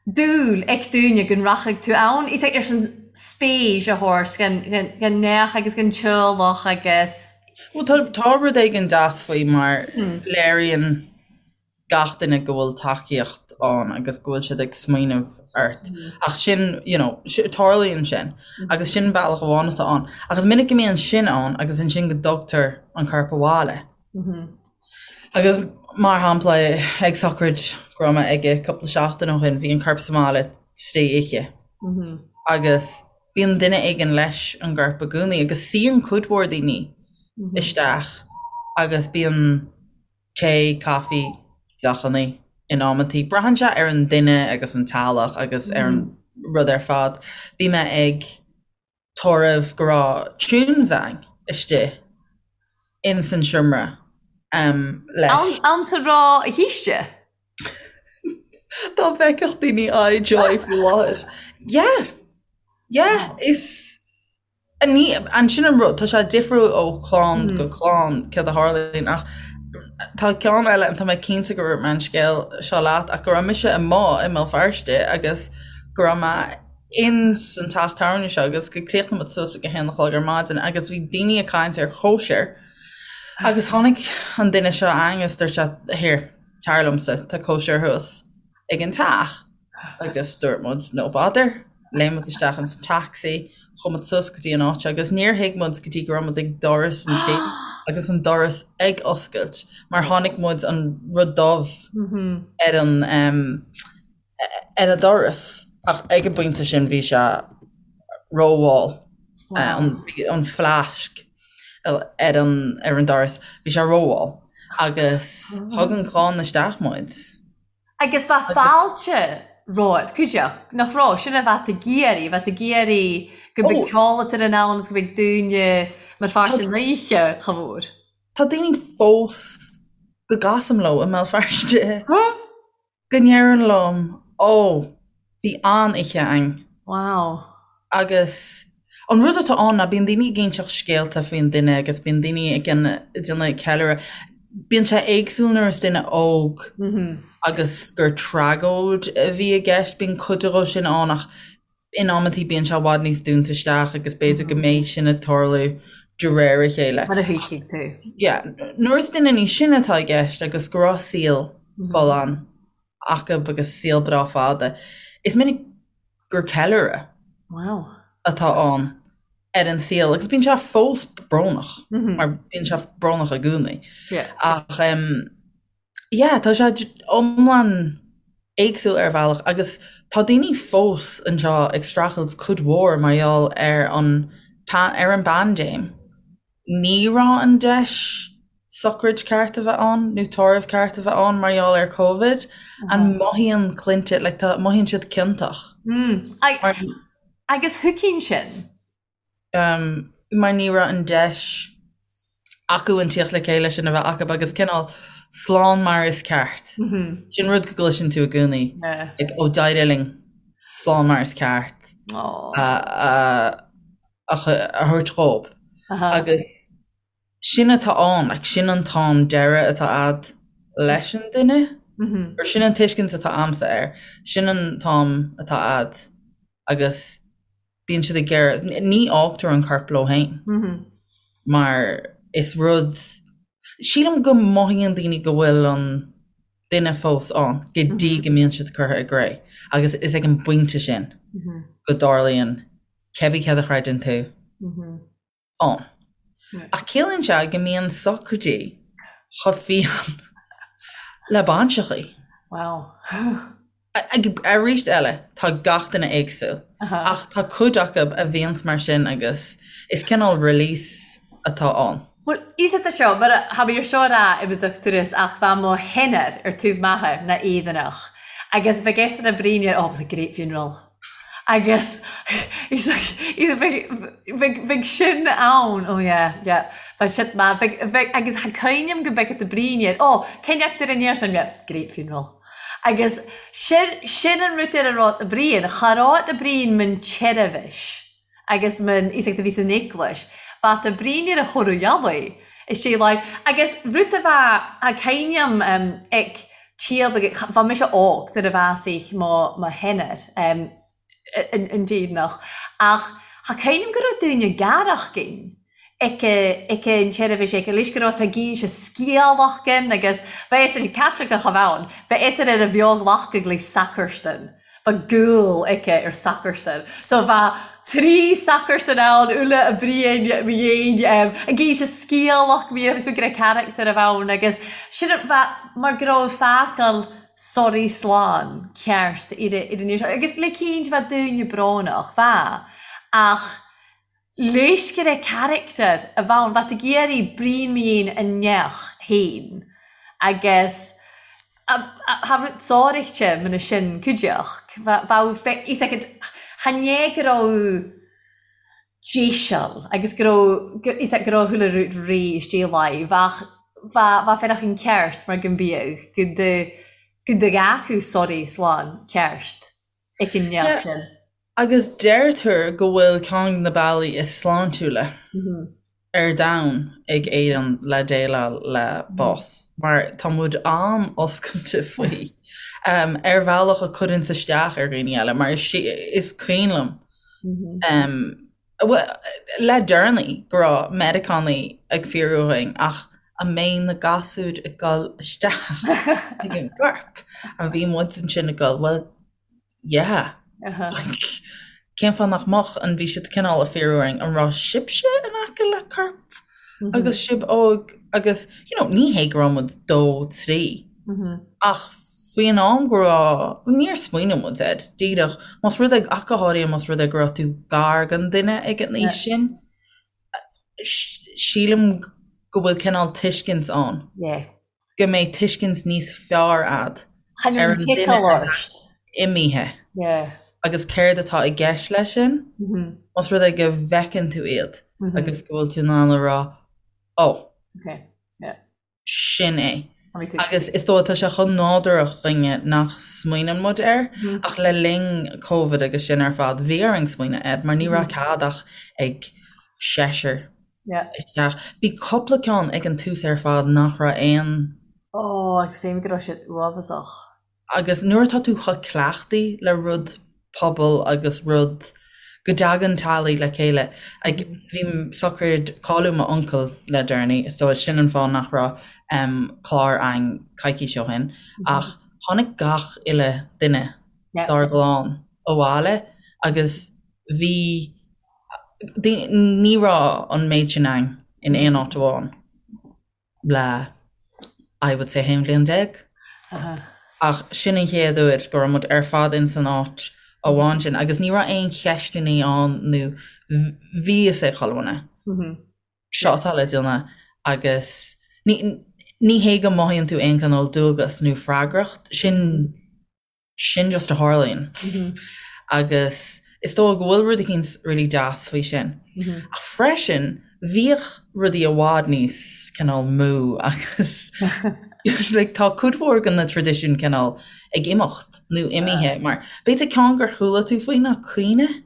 dúil ag daoine go rachadh tú ann, is ar son spéis a thabhairt don neach agus don teaghlach agus.
Bhuel tá tá rud éigin deas faoi mar léiríonn gach duine go bhfuil tacaíocht ann agus go bhfuil siad ag smaoineamh ort. Ach sin, you know, tarlaíonn sin agus sin bealach amháin atá ann. Ach is minic go mbíonn sin ann agus ansin go dtugtar an corp abhaile. Agus mar shampla ag sochraid go raibh mé aige cúpla seachtain ó shin, bhí an corp sa mbaile trí oíche. Agus bíonn duine éigin leis an gcorp i gcónaí agus suíonn cuid mhór daoine isteach agus bíonn tae, caife, deochanna in amantaí. Braitheann sé ar an duine agus an teaghlach agus ar an rud ar fad. Bhí mé ag tórramh go raibh tunes a'inn istigh ins an seomra leis.
Ann sa raibh a shaoiste?
Dá bhfeicfeadh daoine aghaidh Joy faoi láthair. Yeah! Yeah! Is Ansin an rud, tá sé difriúil ó chlann go clann céard a tharlaíonn ach tá ceann eile and tá mé cinnte go raibh mé an scéal seo leat ach go raibh mise amuigh i mBéal Feirste agus go raibh mé ins an teach tábhairne seo agus go críochnaigh muid suas ag a haon a chlog ar maidin agus bhí daoine ag caint ar chóisir agus tháinig an duine seo a'ainn agus dúirt sé here tar liomsa tá cóisir thuas ag an teach agus dúirt muid no bother léim muid isteach ins an taxi chuaigh muid suas go dtí an áit agus níor thuig muid go dtí go raibh muid ag doras an tí agus an doras ag oscailt mar chonaic muid an rud dubh ar an um, ar an doras ach ag an bpointe sin bhí sé rómhall an fleasc ar an ar an doras bhí sé rómhall agus thug an chlann isteach muid.
Agus bheadh fáilte romhat, cuideach, nach raibh? Sin a bheadh ag iarraidh, bheadh ag iarraidh go mbeadh ceol ar an ann agus go mbeadh daoine mar pháirt den oíche chomh mhór.
Tá daoine fós go gcasaim leo i mBéal Feirste. Go ndeireann liom, Ó, bhí an-oíche a'inn.
Wow.
Agus an rud atá ann ná bíonn daoine ag inseacht scéalta faoin duine agus bíonn daoine ag déanamh ceiliúradh. Bíonn sé éagsúil nuair is duine óg agus gur tragóid a bhí i gceist, bíonn cuid de sin ann ach in amantaí bíonn sé i bhfad níos dúnta isteach agus b'fhéidir go mbeidh sin ag tarlú de réir a chéile.
Mar a thuigfidh tú.
Yeah. Nuair is duine níos sine atá i gceist agus go raibh saol folláin acu agus saol breá fada, is minic gur ceiliúradh
Wow.
atá ann ar an saol agus bíonn sé fós brónach mar bíonn sé brónach i gcónaí.
Yeah.
Ach um, Yeah, tá sé iomlán éagsúil ar bhealach agus tá daoine fós anseo ag streachailt cuid mhór mar gheall ar an ar an bpaindéim. Ní raibh an deis sochraid ceart a bheith ann nó tórramh ceart a bheith ann mar gheall ar Covid and mothaíonn clainte like tá mothaíonn siad ciontach.
Mm. Agus thuigfinn sin.
mar ní raibh an deis acu an tíocht le chéile sin a bheith acu agus cineál slán mar is ceart. Sin rud go gcloiseann tú i gcónaí. Like, ó d'éirigh linn slán mar is ceart a thabhairt dhóibh. Agus sin atá ann, like, sin an t-am deireadh atá a'd leis an duine, or sin an tuiscint atá a'msa air, sin an t-am atá a'd agus bíonn siad ag iarraidh, ní fhágtar an corp leo féin mar is rud, sílim go mothaíonn daoine go bhfuil an duine fós ann go dtí go mbíonn siad curtha i gcré agus is ag an bpointe sin go dtarlaíonn cébí céard a chreideann tú. ann. Ach ciallaíonn sé go mbíonn sochraidí chomh fiáin le bainseachaí.
Wow.
Arís eile, tá gach duine éagsúil, ach tá cuid acu a bhíonns mar sin agus is cineál release atá ann.
Bhuel, is é seo, mar tha mi air seo a ràdh im dochtúras ach bha mo sheanathair air taobh m'athar na Éireannach agus bheadh eisean a' bruidhinn oh, it was a great funeral. Agus bheadh sin ann, oh yeah, yeah, bheadh shit man, bheadh, agus tha cuimhneam gu beag a' bruidhinn air, oh, cén fheachtar ar an fhear sin, yeah, great funeral. Agus sin, sin an rud ar a raibh a' bruidhinn, cha raibh a' bruidhinn mun tseirbhis agus mun, is ag do bhí san eaglais, bheadh a' bruidhinn ar a thoradh eallaigh, istigh like, agus rud a bheadh, tha cuimhneam ag, Tíad agus bha mise óg nuair a bhásaigh mo mo sheanathair an Déirneach ach tha cuimhneam go raibh daoine garach ginn ag ag an tseirbhís ag leis go raibh tá ginn se sciálacht ginn agus bha eisean Caitliceach a bh' ann bha eisean ar a bheag-ghlacadh le sacarstan bha gúil aici ar sacarstan so bha tri sacarstan ann uile a bruidhinn mo dhéin ag inse scialach bhí agus go raibh carachtar a bh' ann agus sin bha mar go raibh fágáil. soraidh slán ceart ar an ní seo. Agus le cinnte bheadh daoine brónach, bheadh, ach léiscire carachtar a bheadh ann, bheadh ag iarraidh bruíon mín a neach féin agus cha raibh sáraíte muna sin cuideachd. Bheadh fhios agat, chan é go raibh deiseal agus go raibh, fhios agat, go raibh chuile rud réidh istigh láimh ach bheadh, bheadh féarach an ceart mar go mbíodh, go do, go do acu soraidh slán ceart ag an neach sin.
Agus deirtear go bhfuil ceann de na bealaí is sláintiúla ar domhan ag Éirinn le déileáil le bás, mar tá muid an-oscailte faoi, ar bhealach a chuireanns isteach ar dhaoine eile, mar is cuimhin liom le deireanaí go raibh Meiriceánaigh ag fiafraí dhínn ach an mbeidh na gasúir ag dul isteach ag an gcorp? And bhí muid ansin ag dul, well, yeah. Like, cén fáth nach mbeadh? And bhí siad cineál ag fiafraí orainn, an raibh sibhse in aice le corp agus sibh óg agus, you know, ní hé go raibh muid dó, trí, ach faoin am go raibh, níor smaoinigh muid air, díreach, más rud é, ach go háirithe más rud é go raibh tú gar don duine ag an aois sin, sílim go bhfuil cineál tuiscint ann. Go mbeidh tuiscint níos fearr a'd ar an duine atá imithe agus céard atá i gceist leis sin, más rud é go bhfeiceann tú iad agus go bhfuil tú in ann a rá, 'Ó, sin é. Agus is dóigh tá sé chomh nádúrach dhúinne nach smaoineann muid air, ach le linn Covid agus sin ar fad, bhí orainn smaoineamh air mar ní raibh cead ach ag seisear isteach. Bhí cúpla ceann ag an tús ar fad nach raibh aon.
Ó, agus féin go raibh siad uafásach.
Agus nuair atá tú chomh cleachtaithe le rud pobail agus rud go dtagann teaghlaigh le chéile, like bhí sochraid cailleadh m'uncail le deireanaí, so sin an fáth nach raibh clár againn coicís ó shin, ach tháinig gach uile duine dár gclann abhaile agus bhí, ní raibh an méid sin againn in aon áit amháin. le I would say 11 bhliain. Ach sin an chéad uair go raibh muid ar fad ins an áit amháin sin agus ní raibh aon cheisteannaí ann nó bhí fhios ag chuile dhuine seo atá le déanamh agus ní ní hé go mothaíonn tú aon chineál dualgas nó freagracht, sin sin just a tharlaíonn agus is dóigh go bhfuil rud eicínt really deas faoi sin. Ach freisin bhíodh rudaí i bhfad níos cineál mó agus like tá cuid mhór de na traidisiúin cineál ag imeacht nó imithe mar b'fhéidir ceann gur chuala tú faoi ná caoineadh.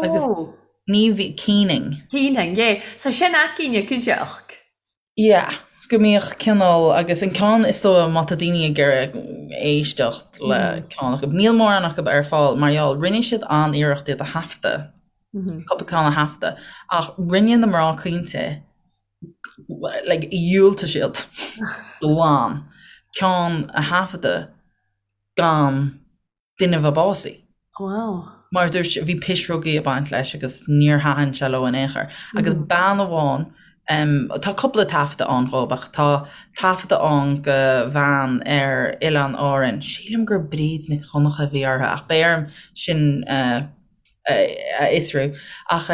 Agus
Ó.
ní bhí keening.
Keening, yeah. So sin againne cuideachd.
Yeah, go mbíodh cineál, agus an ceann is dóigh má tá daoine ag iarraidh éisteacht le ceann acu, níl mórán acu ar fáil mar gheall, rinne siad an-iarracht iad a thaifeadadh, cúpla ceann a thaifeadadh, ach rinne na mná caointe, like, dhiúltaigh siad go lán ceann a thaifeadadh gan duine a bheith básaithe.
Wow.
Mar dúirt, bhí pisreogaí ag baint leis agus níor thaitin sé leo in aon chor. Agus bean amháin, tá cúpla taifeadadh ann dhóibh ach tá taifeadadh ann go bhean ar Oileáin Árann, sílim gur Bríd Nic Dhonncha a bhí uirthi ach beidh orm sin a fhiosrú. Ach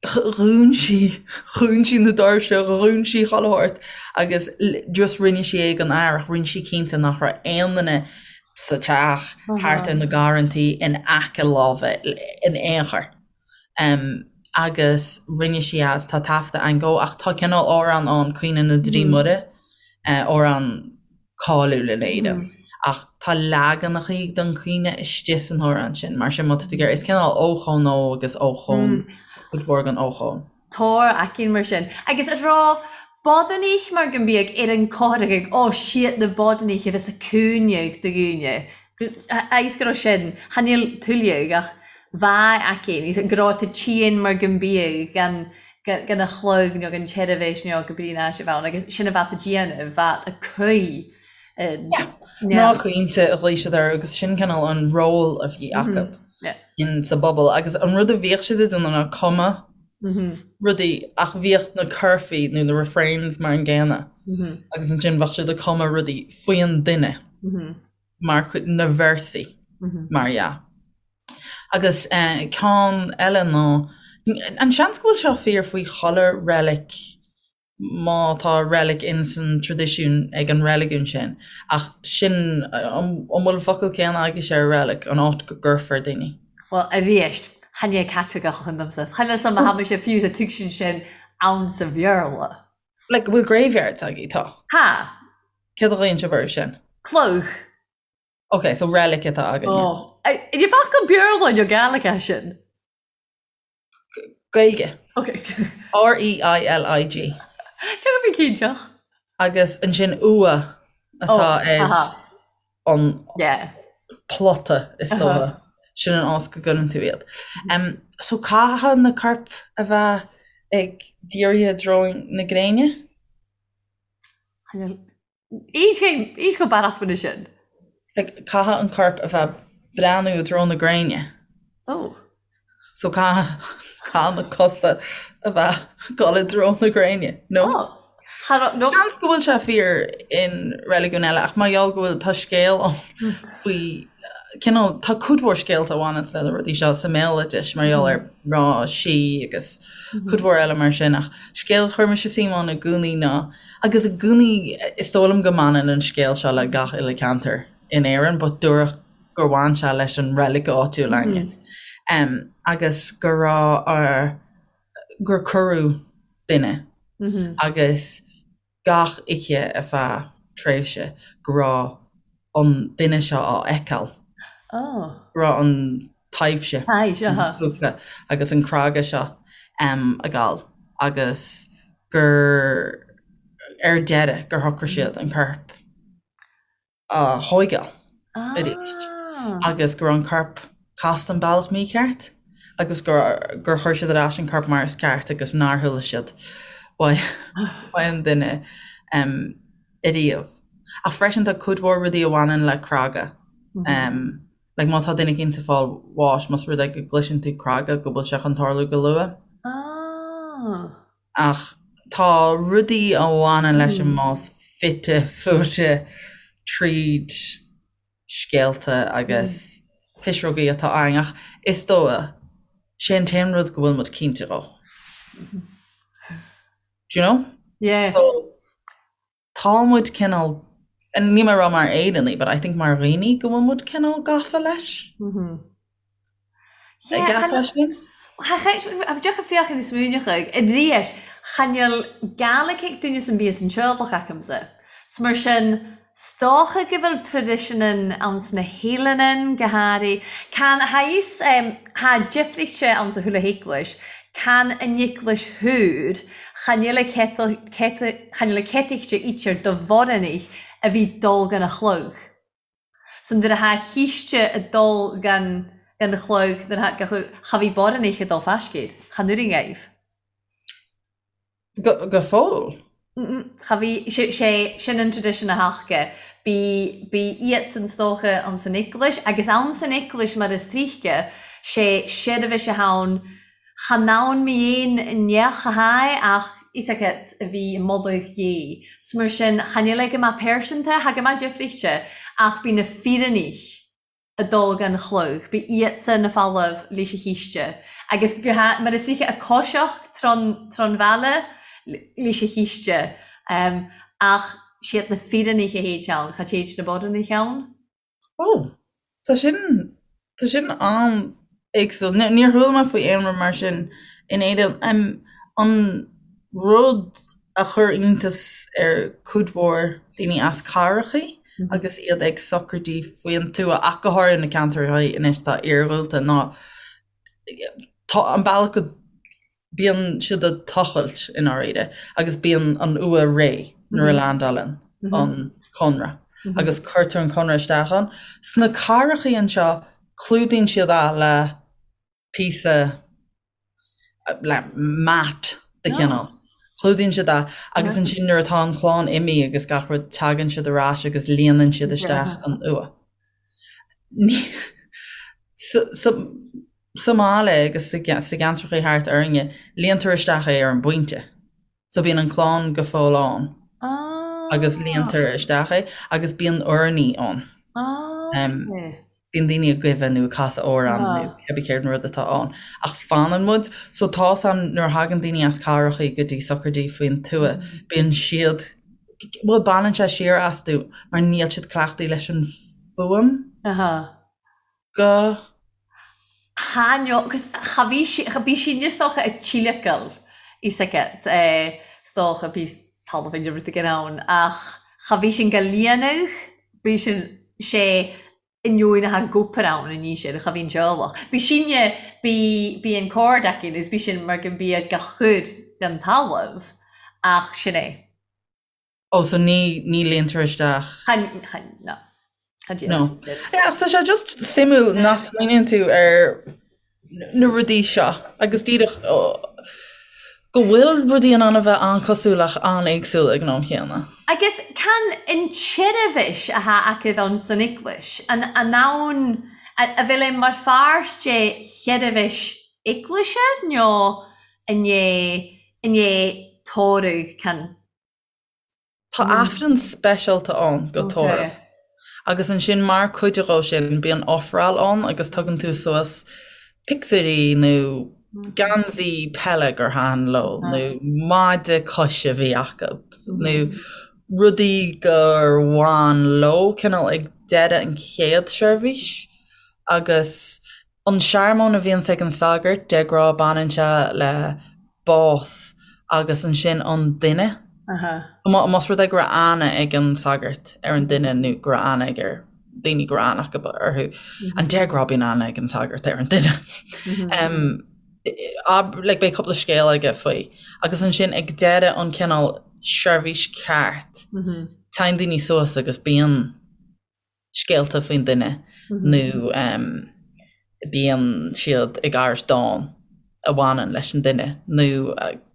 Dhún sí, dhún sí na doirse, dhún sí chuile shórt agus just rinne sí é don fhear ach rinne sí cinnte nach raibh aon duine sa teach, thart ar na garrantaí, in aice láimhe in aon chor. Agus rinne sí as, tá taifeadadh ann dhó ach tá cineál amhrán ann, Caoineadh na dTrí Muire, amhrán cáiliúil in Éirinn. Ach tá leaganachaí den chaoineadh istigh san amhrán sin, mar sin má tá tú ag iarraidh, is cineál ochón ó agus ochón, cuid mhór den ochón.
Tor aicinn mar sin. Agus a raibh bodanaich mar go mbíodh ar an cothrach ag ó siad na bodanaich a bheas a cúineadh do dhaoine. Agus go raibh sin, chan fhuil tuilleadh ach bheadh aicinn, go raibh tú tinn mar go mbíodh gan gan a chlog nó gan tseirbhís nó go brí ná sé bheith ann agus sin a bheadh a déanamh, bheadh a cuí
in. Mná caointe a ghlaoigh siad orthu agus sin cineál an ról a bhí acu in sa bpobal agus an rud a bhíodh siad ag déanamh ná cuma. rudaí ach bhíodh na curfaí nó na refrains mar an gcéanna agus ansin bheadh siad ag cumadh rudaí faoin duine mar chuid na véarsaí mar dhea. Agus ceann eile ná an seans go bhfuil seo fíor faoi chuile reilig má tá reilig in san traidisiún ag an reiligiún sin, ach sin, an bhfuil an focal céanna agaibhse ar reilig, an áit go gcuirfear daoine?
Bhuel, arís, chan é Caitliceach a chun domsa. Chan eil 's a'm ma tha mise fiù 's a' tuigsinn sin ann sa Bheurla.
Like, bhfuil graveyards agaibh? Tá.
Tha.
Céard a ghlaonn sibh orthu sin?
Cloch.
Ok, so reilig atá againne.
Oh. An focal Beurla nó Gaelic é sin?
Gaeilge.
Ok.
R-E-I-L-I-G.
Tá go cinnteach.
Agus ansin uaigh atá ar an plota is dócha. Sin an áit go gcuireann tú iad. So caithfidh na coirp a bheith ag dírithe i dtreo na gréine?
Éist go beannacht faoina sin.
Like, caithfidh an corp a bheith breathnú i dtreo na gréine.
Oh.
So caithfidh, caithfidh na cosa a bheith ag dul i dtreo na gréine, no?
Oh. Cha raibh, no.
Seans go bhfuil sé fíor in reiligiún eile ach mar gheall go bhfuil, tá scéal ann faoi, cineál, tá cuid mhór scéalta a bhaineanns le na rudaí seo sa mbéaloideas mar gheall ar mná sí agus cuid mhór eile mar sin ach scéal a chuir mise suim ann i gcónaí ná Agus i gcónaí, is dóigh liom go mbaineann an scéal seo le gach uile ceantar in Éirinn, but dúradh gur bhain sé leis an reilig áitiúil againne. Agus go raibh ar, gur cuireadh duine agus gach oíche ar feadh tréimhse go raibh an duine seo á fheiceáil. Go raibh an taibhse agus an craga seo ag gabháil agus gur ar deireadh gur shocraigh siad an corp a thóigeáil arís agus go raibh an corp casta an bealach mícheart agus gur gur chuir siad ar ais an corp mar is ceart agus nár chuala siad uaidh an duine ariamh. Ach freisin tá cuid mhór rudaí a bhaineann le craga. Like má tá duine éicint ag fáil bháis, más rud é go gcloiseann tú craga go bhfuil sé chun tarlú go luath.
Ah.
Ach tá rudaí a bhaineann leis an mbás fite fuaite tríd scéalta agus pisreogaí atá againn ach is dóigh sé an t-aon rud go bhfuil muid cinnte dhó. Do you know?
Yeah.
So tá muid cineál, níl mé ag rá mar Éireannaigh, but I think mar dhaoine go bhfuil muid cineál gafa leis.
An gceapfá
sin?
Deoch féachaint is smaoineachadh i ndiaidh chan fheil Gaelic ag duine san bíos an teaghlach acamsa. 'S mar sin, 's dócha go bhfuil traidisiúin ann sna hEileanan go háirithe. Can tha fhios tha difríochta ann sa chuile heaglais, can an eaglais thoir, chan fheil a chan fheil a céataíchte ítear do bhorannaich a bhí dul gan a chlog. So nuair a tha chíste a dul gan gan chlog nuair a tha cha bhí borannaich a dul faiscéid, chan oireann aoibh.
Go go fóill?
Cha bhí, sé sé sin an tradition a thaca. Bí bí iadsan 's dócha ann san eaglais agus ann san eaglais mar is tríthce, sé seirbhís a tha ann, chan ann mí aon neach a tha ach is agat a bhí i moladh Dhé. 'S mar sin chan fheil é go maith pearsanta, tha go maith difríchte ach bí na fírinní a dul gan chlog, bí iadsan na falamh leis a chíste agus go ha mar is tríthce a coiseach tron tron bhaile leis a chíste ach siad na fírinní a théid ann, cha téid na borannaí ann.
Ó, tá sin, tá sin an-éagsúil. Níor chuala mé faoi aon rud mar sin in Éirinn. An rud a chuir iontas ar cuid mhór daoine as cathrachaí agus iad ag sochraidí faoin tuath, ach go háirithe na ceantracha anois atá iarghúlta, ná tá an bealach go bíonn siad ag tochailt i ndáiríre agus bíonn an uaigh réidh nuair a leaindeálann an cónra agus cuirtear an cónra isteach ann. Sna cathrachaí anseo clúdaíonn siad é le píosa le mat de chineál. Clúdaíonn siad é agus ansin nuair atá an chlann imithe agus gach rud tagann siad ar ais agus líonann siad isteach an uaigh. So. Sa mbaile agus sa gceantracha thart orainne, líontar isteach é ar an bpointe. So bíonn an clann go fóill ann agus líontar isteach é agus bíonn urnaí ann. Bíonn daoine ag guibhe nó ag casadh amhrán nó cibé céard an rud atá ann. Ach fanann muid, so tá's a'm nuair a thagann daoine as cathrachaí go dtí sochraidí faoin tuath, bíonn siad, bhuel baineann sé siar astu mar níl siad cleachtaithe leis an fuaim. Go.
Cha no, cos cha bhí sí, cha bhí sí is dócha ag tíleacail is aici, is dócha bhí talamh in rud éigin ann ach cha bhí sin go líonadh, bhí sin sé inneoin a gcóipir ann an ní sin, cha bhí an teaghlach. Bhí sinne, bhí, bhí an cord aici agus bhí sin mar go mbíodh gach chur den talamh ach sin é.
Oh so ní ní líontar isteach.
Chan chan no. Chan
No. Yeah, ach tá sé just suimiúil nach smaoiníonn tú ar na rudaí seo agus díreach go bhfuil rudaí in ann a bheith an-chosúil ach an-éagsúil ag an am chéanna.
Agus can an tseirbhis athá acu ann san eaglais, an an ann a bhfuil é mar pháirt de sheirbhis eaglaise nó an é an é tórramh can
Tá Aifreann speisialta ann go tórramh. Agus ansin mar cuid dhó sin bíonn ofráil ann agus tugann tú suas pictiúirí nó geansaí peile gur thaitin leo nó maide coise a bhí acu nó rudaí gur bhain leo cineál ag deireadh an chéad seirbhís agus An searmóin a bhíonns ag an sagart, de ghnáth baineann sé le bás agus ansin an duine. Más rud é go raibh aithne ag an sagart ar an duine nó go raibh aithne ag ar daoine go raibh aithne acu orthu, an de ghnáth bíonn aithne ag an sagart ar an duine. Like beidh cúpla scéal aige faoi. Agus ansin ag deireadh an cineál seirbhís ceart, téann daoine suas agus bíonn scéalta faoin duine nó bíonn siad ag aithris dán a bhaineann leis an duine nó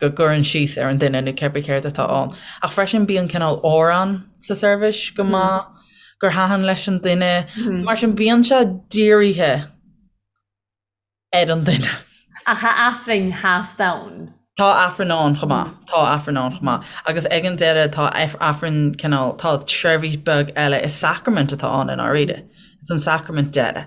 go gcuireann síos ar an duine nó cibé céard atá ann. Ach freisin bíonn cineál amhrán sa seirbhís go maith gur thaitin leis an duine. Mar sin bíonn sé dírithe ar an duine.
Ach tá Aifrinn theas ann.
Tá Aifreann ann chomh maith. Tá Aifreann ann chomh maith. Agus ag an deireadh tá Aifreann cineál, tá seirbhís beag eile, is sacraimint atá ann i ndáiríre. Is an sacraimint deiridh.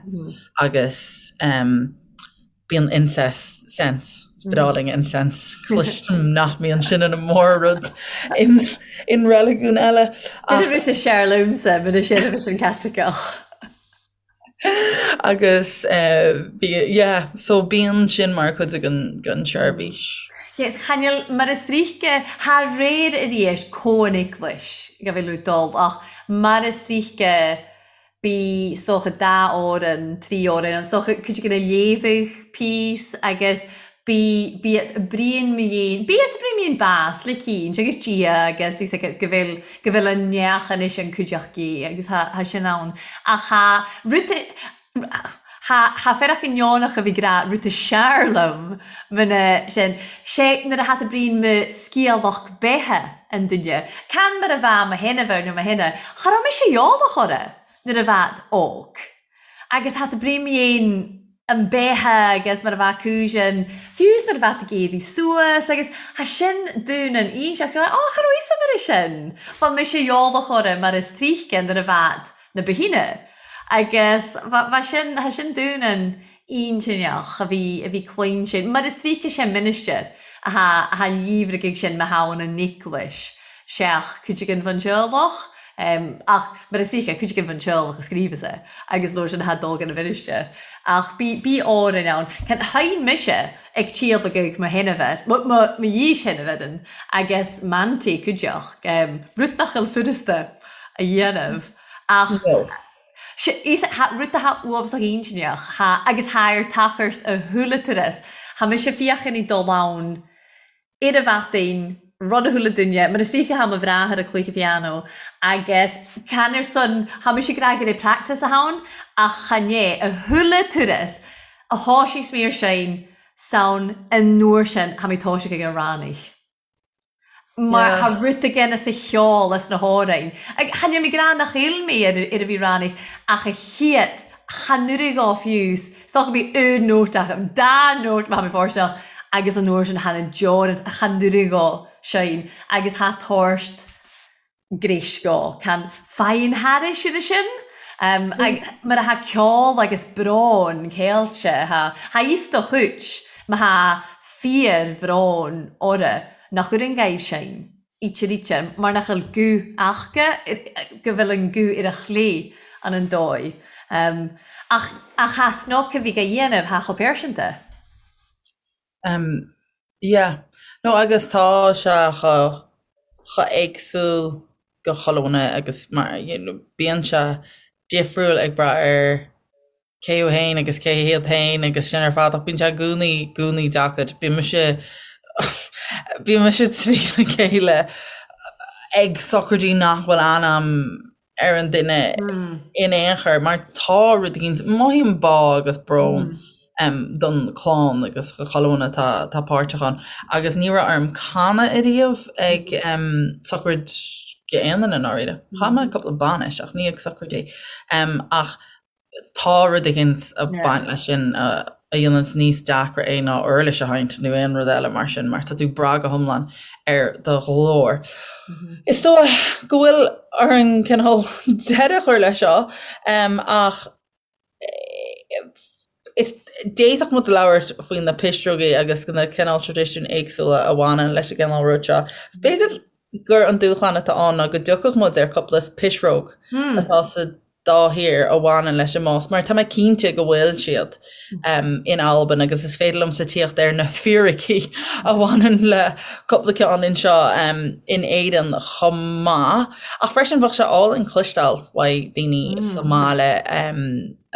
Agus bíonn incense, sense, is breá linn incense, cloisim nach mbíonn sin ina mór-rud in reiligiún eile.
Sin an rud is fearr liomsa, muna seirbhís an Caitliceach.
Agus bhí, yeah, so bíonn sin mar chuid den, den tseirbhís.
Yes, chan fheil mar is tríthce, thar réir arís comh an eaglais go bhfuil tú dul ach mar is tríthce bí is dócha dá fhoireann, trí fhoireann, is dócha cuid de na léamhaidh píos agus Bí, bíodh Brian Mean, bíodh Brian Mean bás le cinnt agus Dia agus is ag go bhfuil, go bhfuil an neach anois an cuideachtaí agus thá, thá sin ann. Ach thá rud, thá, thá fearach go neonach a bhí ag rá rud is sear liom muna sin, sé nuair a thá Brian mo sciathlach beithe an duine, can mar a bheadh mo shéanamh nó mo shéanamh, cha raibh mise eolach orra nuair a bhead óg. Agus thá Brian Mean an beatha agus mar a bheadh cúiseann, fiú is nuair a bheadh ag éirí suas agus thá sin dún an inseacht go raibh, á, cha raibh fhios a'm ar sin. Bha mise eolach orra mar is tríthce nuair a bhead na ba shine. Agus bha, bha sin, thá sin dún an intinneach a bhí, a bhí cluinsin, mar is tríthce sé ministir athá, athá líomhraigh sin ma thabhann an eaglais seach cuid againn fán teaghlach. Ach mar is dóiche, cuid againn fán teaghlach a scríobhas é agus nuair sin thá dul gan a mhinistir. Ach bí, bí Árainn ann. Can, sheinn mise ag tíolacadh mo shéanamhair, mo, mo, mo dhís-shéanamhaireann agus m'auntie cuideachd, rud nach bhfuil furasta a dhéanamh. Ach sé, is, thá, rud athá uafásach intinneach, thá, agus thá ar tachairt a shúile turas. Thá mise féachaint ag dul ann ar a mhaidin, rud a chuala duine, mar is dóiche thá mo bhráthair ag cluiche phianó agus can ar son, thá mise ag rá go raibh practice ann ach chan é, a chuala turas a thoisigh mé ar sein san an uair sin thá mé toiseach ag an rannaigh. Mar thá rud again as a cheol as na hamhráin. Ag chan fheil mé ag rá nach fheil mé ar ar a bhí rannaigh ach a chéad. Chan oireadh dhó fiú, 's dócha go mbí aon nóta agam, dá nóta má tha mi fòirsteanach agus an uair sin chan an deoran, chan oireadh dhó sin agus tha tabhairt gréis dhó, can faighinn thairis ar sin. Mar a tha ceol agus brón ceilte, tha fhios do chuid, má tha fíor-bhrón orra nach oireann dhaoibh sin. íte ríte, mar nach bhfuil guth aca, go bhfuil an guth ar a chlé an an dóigh. Ach ach tha snoc a bhí dhá dhéanamh, tha chomh pearsanta.
Um, yeah. No agus tá sé chomh chomh éagsúil go chuile dhuine agus mar you know bíonn sé difriúil ag brath ar cé thú fhéin agus cé hiad fhéin agus sin ar fad ach bíonn sé i gcónaí i gcónaí deacair. Bíonn mise bíonn mise trína chéile ag sochraidí nach bhfuil ainm ar an duine in aon chor mar tá rud éigin, mothaím bá agus brón don chlann agus do chuile dhuine atá atá páirteach ann agus ní raibh orm canadh ariamh ag sochraid aon duine i ndáiríre. Chan mé ag cúpla bainis ach ní ag sochraidí. Ach tá rud éigin ag baint leis sin a dhéananns níos deacra é ná uirlis a sheinnt nó aon rud eile mar sin, mar tá tú ag brath go hiomlán ar do ghlór. Is dóigh go bhfuil orainn cineál deireadh a chur leis seo, ach is d'fhéadfadh muid labhairt faoi na pisreogaí agus na cineál traidisiúin éagsúla a bhaineann leis an gcineál rud seo. B'fhéidir gur an dúshlán atá ann ná go dtiocfadh muid ar cúpla pisreog atá sa dá thír a bhaineann leis an mbás, mar tá mé cinnte go bhfuil siad in Albain agus is féidir liomsa tíocht ar na fíricí a bhaineann le cúpla ceann anseo in Éirinn chomh maith. Ach freisin bheadh sé álainn cloisteáil uaidh daoine sa mbaile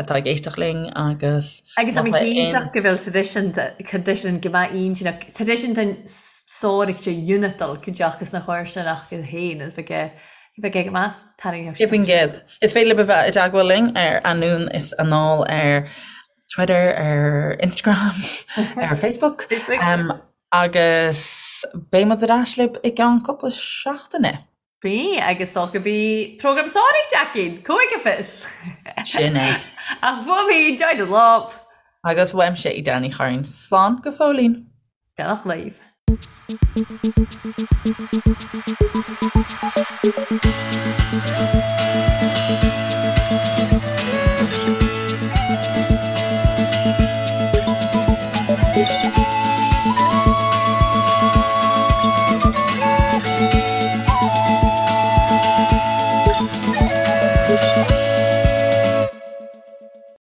atá ag éisteacht linn agus
Agus tá mé cinnteach go bhfuil traidisiún go mbeadh intinneach, traidisiún den sórt unitail, cuideachta sna chomharsanacht féin, is bheadh bheadh go maith. Tarraingíodh
sé. 100%. Is féidir libh a bheith i dteagmháil linn ar Anonn is Anall ar Twitter, ar Instagram, ar Facebook. Agus beidh muid ar ais libh i gceann cúpla seachtaine.
Beidh, agus dócha go mbeidh prógram sáraithe againn, cúige fios!
Sin é.
Ach uaim féin, Joy Dunlop.
Agus uaimse, Edel Ní Churraoin. Slán go fóillín.
Beannacht libh.